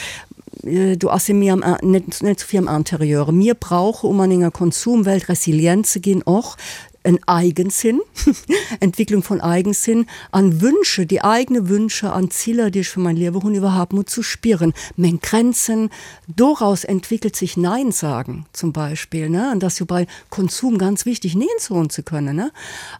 Do ass e méi am, net, net sou vill am Interieur. Mir brauche, um an enger Konsumwelt resilient ze ginn, och en Eigensinn, Entwicklung von Eigensinn an Wünsche, déi eigene Wünsche an Zieler, déi ech fir mein Liewe hunn, iwwerhaapt mol zu spieren, meng Grenzen. Doraus entwickelt sich Nein sagen zum Beispiel, ne? An dat ass jo bei Konsum ganz wichtig, Neen soen ze kënnen, ne?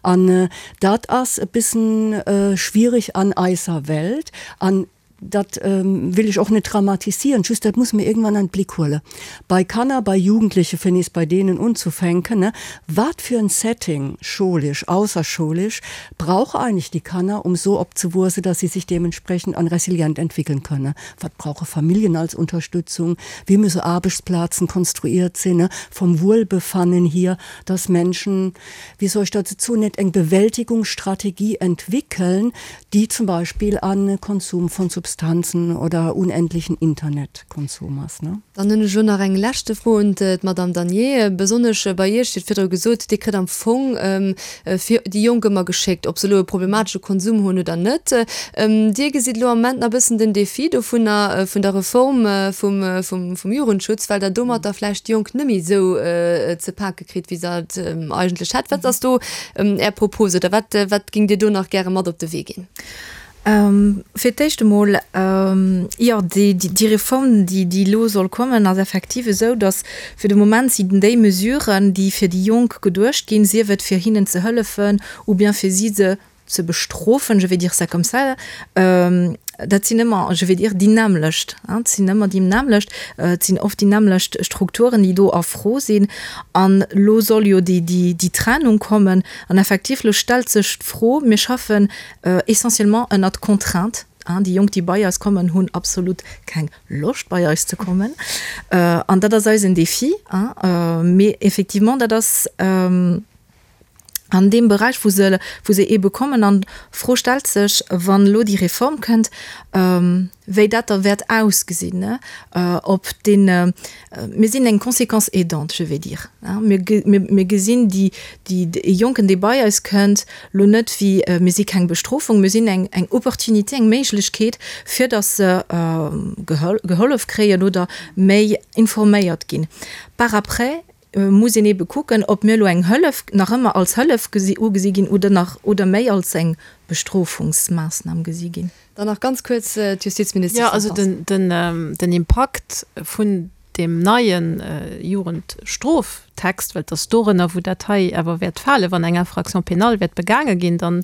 An dat ass e bissen schwierig an eiser Welt. An Dat will ech och net dramatisieren, just dat muss mer iergendwann an d'Blick huelen. Bei Kanner, bei Jugendleche, fir nees bei deenen unzufänken, ne, wat fir en Setting, schoulesch, ausserschoulesch, brauche eigentlich die Kanner, um so opzewuesse, dass sie sich dementsprechend an resilient entwickeln könne? Wat brauche Familljen als Unterstützung? Wéi müsse Aarbechtsplazen konstruiert sinn, ne, vom Wohlbefannen hier, dass Menschen, wéi soll ech dat soen, net eng Bewältigungsstrategie entwickeln, déi zum Beispill an Konsum von Substanzen oder unendlichen Internetkonsum ass. Dann hunn ech elo nach eng leschte Fro un d'Madame Danier. Besonnesch bei Iech, Dir hutt virdru gesot, Dir kritt am Fong fir déi Jonk ëmmer geschéckt, ob se elo e problematesche Konsum hunn oder net. Dir gesitt elo am Moment nach e bëssen den Défi dovunner, vun der Reform vum Jugendschutz, well Der domatter vläicht déi Jonk net méi esou ze pake kritt, wéi se et eigentlech hätt. Wat ass do Är Propos oder wat, wat géingt Dir do nach gäre mat op de Wee ginn? Fir d'éischt emol, jo, déi Reform, déi elo soll kommen, ass effektiv esou, datt fir de Moment sinn déi Mesuren, déi fir déi Jonk geduecht ginn, sief et fir hinnen ze hëllefen ou bien fir si ze ze bestrofen, je vais dire ça comme ça, dat sinn ëmmer, je vais dire, déi nämmlecht, et sinn ëmmer déi nämmlecht, et sinn oft déi nämmlecht Strukturen, déi do a Fro sinn. An elo soll jo déi, déi, déi Trennung kommen. An effektiv, elo stellt sech d'Fro, mir schaffen essentiellement ënnert Contrainte, déi Jonk, déi bei eis kommen, hunn absolut keng Loscht, bei eis ze kommen. An dat ass eisen Défi. Mee effectivement, dat ass, an deem Beräich, wou se, wou se eebe kommen. An d'Fro stellt sech, wann elo déi Reform kënnt, wéi dat da wäert ausgesinn, ob deen, mir sinn eng Conséquence aidante, je vais dire, mir, mir gesinn déi, déi, e Jonken, dee bei eis kënnt, elo net wéi, mir si keng Bestrofung, mir sinn eng, eng Opportunité, eng Méiglechkeet, fir datt se gehollef kréien oder méi informéiert ginn. Par après muss een eebe kucken, ob mir elo eng Hëllef nach ëmmer als Hëllef ugesi ginn oder nach oder méi als eng Bestrofungsmaassnam gesi ginn. Dann nach ganz kuerz d'Justizministesch Jo, also den Impakt vun deem neie Jugendstroftext, well et ass dorënner, wou dat hei awer wäert falen, wann eng Infraction pénale wäert begaange ginn, dann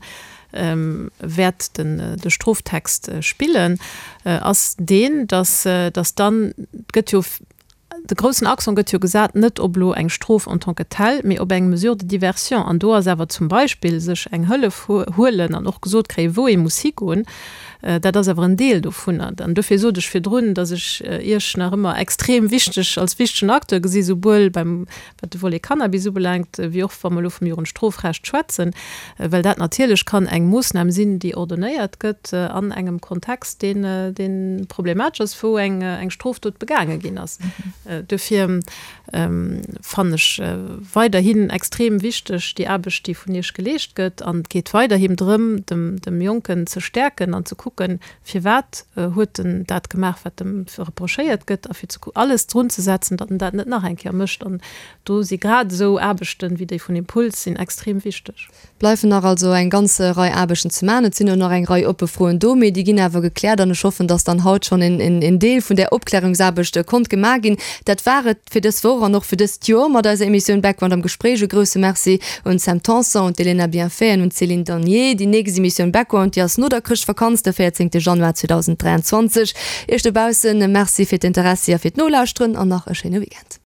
wäert de Stroftext spillen, ass deen, dass dann, et gëtt jo. De groussen Accent gëtt jo gesat net op elo eng Strof en tant que telle, mee op eng Mesure de diversion. An do ass awer zum Beispill sech eng Hëllef huelen an och gesot kréien, wou ee muss higoen, dat ass awer en Deel dovunner. An dofir sot ech virdrun, datt ech Iech nach ëmmer extrem wichteg als wichtegen Acteur gesi souwuel beim wat de Volet Cannabis ubelaangt, wéi och wa mer elo vum Jugendstrofrecht schwätzen, well dat natierlech kann eng Moossnam sinn, déi ordonnéiert gëtt an engem Kontext, deen, dee problematesch ass, wou eng, eng Strofdot begaange ginn ass. Duerfir fannen ech weiderhin extrem wichteg déi Aarbecht, déi vun Iech geleescht gëtt. An et geet weiderhin drëm, dem, dem Jonken ze stäerken an ze kucken, Firwat huet en dat gemaach, wat em reprochéiert gëtt, a fir ze alles drun ze setzen, datt en dat net nach eng Kéier mécht. An do si grad esou Aarbechten, wéi déi vun Impuls sinn, extrem wichteg. Bleifen nach also eng ganz Rei Aarbechten ze maachen. Et sinn och nach eng Rei oppe Froen do, mee déi ginn awer gekläert an ech hoffen, datt dann haut schonn en Deel vun där Opklärungsaarbecht konnt gemaach ginn. Dat war et fir dës Woch an och fir dëst Joer mat eiser Emissioun Background am Gespréich. E grousse Merci un d'Sam Tanson, un d'Elena Bienfait an un d'Céline Danier. Déi nächst Emissioun Background, déi ass no der Chrëschtvakanz, de 14 Januar 2023. Iech dobaussen Merci fir d'Interessi a fir d'Nolauschteren an nach e schéine Weekend.